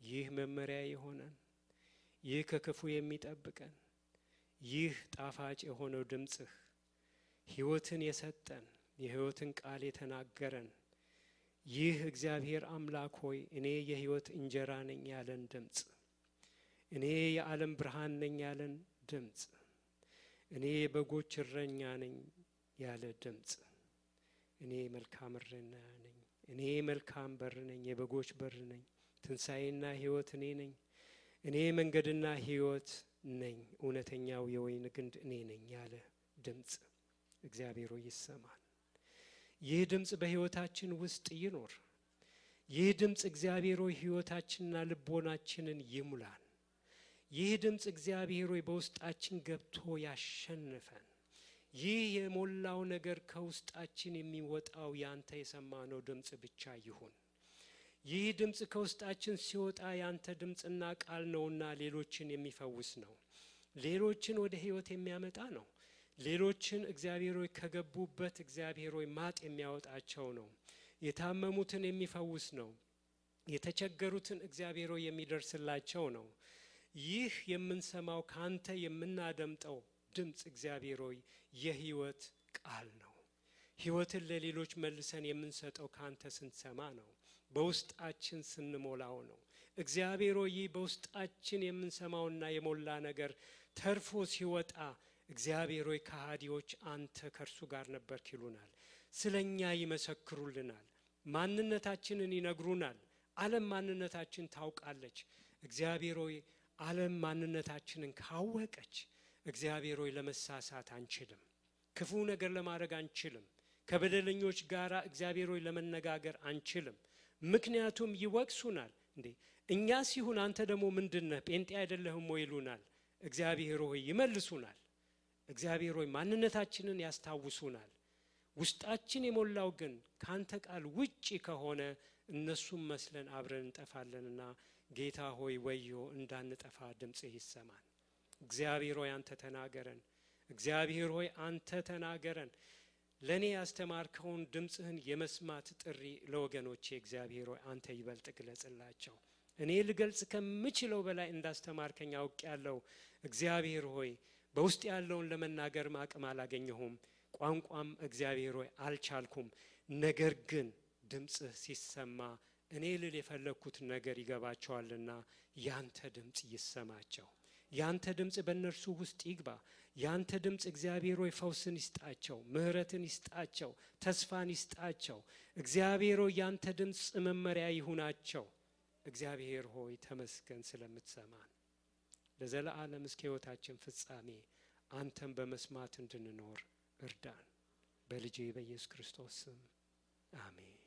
ይህ መመሪያ የሆነን ይህ ከክፉ የሚጠብቀን ይህ ጣፋጭ የሆነው ድምፅህ ህይወትን የሰጠን የህይወትን ቃል የተናገረን ይህ እግዚአብሔር አምላክ ሆይ እኔ የህይወት እንጀራ ነኝ ያለን ድምፅ እኔ የዓለም ብርሃን ነኝ ያለን ድምፅ እኔ የበጎች እረኛ ነኝ ያለ ድምፅ እኔ መልካም እረኛ ነኝ እኔ መልካም በር ነኝ የበጎች በር ነኝ ትንሣኤና ህይወት እኔ ነኝ እኔ መንገድና ህይወት ነኝ እውነተኛው የወይን ግንድ እኔ ነኝ ያለ ድምፅ እግዚአብሔር ሆይ ይሰማን። ይህ ድምፅ በህይወታችን ውስጥ ይኖር። ይህ ድምፅ እግዚአብሔር ሆይ ህይወታችንና ልቦናችንን ይሙላን። ይህ ድምፅ እግዚአብሔር ሆይ በውስጣችን ገብቶ ያሸንፈን። ይህ የሞላው ነገር ከውስጣችን የሚወጣው ያንተ የሰማነው ድምፅ ብቻ ይሁን። ይህ ድምፅ ከውስጣችን ሲወጣ ያንተ ድምፅና ቃል ነውና ሌሎችን የሚፈውስ ነው። ሌሎችን ወደ ህይወት የሚያመጣ ነው። ሌሎችን እግዚአብሔር ሆይ ከገቡበት እግዚአብሔር ሆይ ማጥ የሚያወጣቸው ነው። የታመሙትን የሚፈውስ ነው። የተቸገሩትን እግዚአብሔር ሆይ የሚደርስላቸው ነው። ይህ የምንሰማው ካንተ የምናደምጠው ድምፅ እግዚአብሔር ሆይ የህይወት ቃል ነው። ህይወትን ለሌሎች መልሰን የምንሰጠው ካንተ ስንሰማ ነው። በውስጣችን ስንሞላው ነው። እግዚአብሔር ሆይ በውስጣችን የምንሰማውና የሞላ ነገር ተርፎ ሲወጣ እግዚአብሔር ሆይ ከሃዲዎች አንተ ከርሱ ጋር ነበርክ ይሉናል። ስለኛ ይመሰክሩልናል። ማንነታችንን ይነግሩናል። ዓለም ማንነታችን ታውቃለች። እግዚአብሔር ሆይ ዓለም ማንነታችንን ካወቀች እግዚአብሔር ሆይ ለመሳሳት አንችልም። ክፉ ነገር ለማድረግ አንችልም። ከበደለኞች ጋራ እግዚአብሔር ሆይ ለመነጋገር አንችልም። ምክንያቱም ይወቅሱናል። እንዴ እኛ ሲሆን አንተ ደግሞ ምንድነህ ጴንጤ አይደለህም ወይ ይሉናል። እግዚአብሔር ሆይ ይመልሱናል። እግዚአብሔር ሆይ ማንነታችንን ያስታውሱናል። ውስጣችን የሞላው ግን ካንተ ቃል ውጪ ከሆነ እነሱም መስለን አብረን እንጠፋለንና ጌታ ሆይ ወዮ እንዳንጠፋ ድምጽህ ይሰማን። እግዚአብሔር ሆይ አንተ ተናገረን። እግዚአብሔር ሆይ አንተ ተናገረን። ለኔ ያስተማርከውን ድምጽህን የመስማት ጥሪ ለወገኖቼ እግዚአብሔር ሆይ አንተ ይበልጥ ግለጽላቸው። እኔ ልገልጽ ከምችለው በላይ እንዳስተማርከኝ አውቄያለሁ። እግዚአብሔር ሆይ በውስጥ ያለውን ለመናገር አቅም አላገኘሁም፣ ቋንቋም እግዚአብሔር ሆይ አልቻልኩም። ነገር ግን ድምጽህ ሲሰማ እኔ ልል የፈለኩት ነገር ይገባቸዋልና ያንተ ድምጽ ይሰማቸው። ያንተ ድምጽ በእነርሱ ውስጥ ይግባ። ያንተ ድምጽ እግዚአብሔር ሆይ ፈውስን ይስጣቸው፣ ምህረትን ይስጣቸው፣ ተስፋን ይስጣቸው። እግዚአብሔር ሆይ ያንተ ድምጽ መመሪያ ይሁናቸው። እግዚአብሔር ሆይ ተመስገን ስለምትሰማን። ለዘላለም እስከ ሕይወታችን ፍጻሜ አንተን በመስማት እንድንኖር እርዳን። በልጄ በኢየሱስ ክርስቶስ ስም አሜን።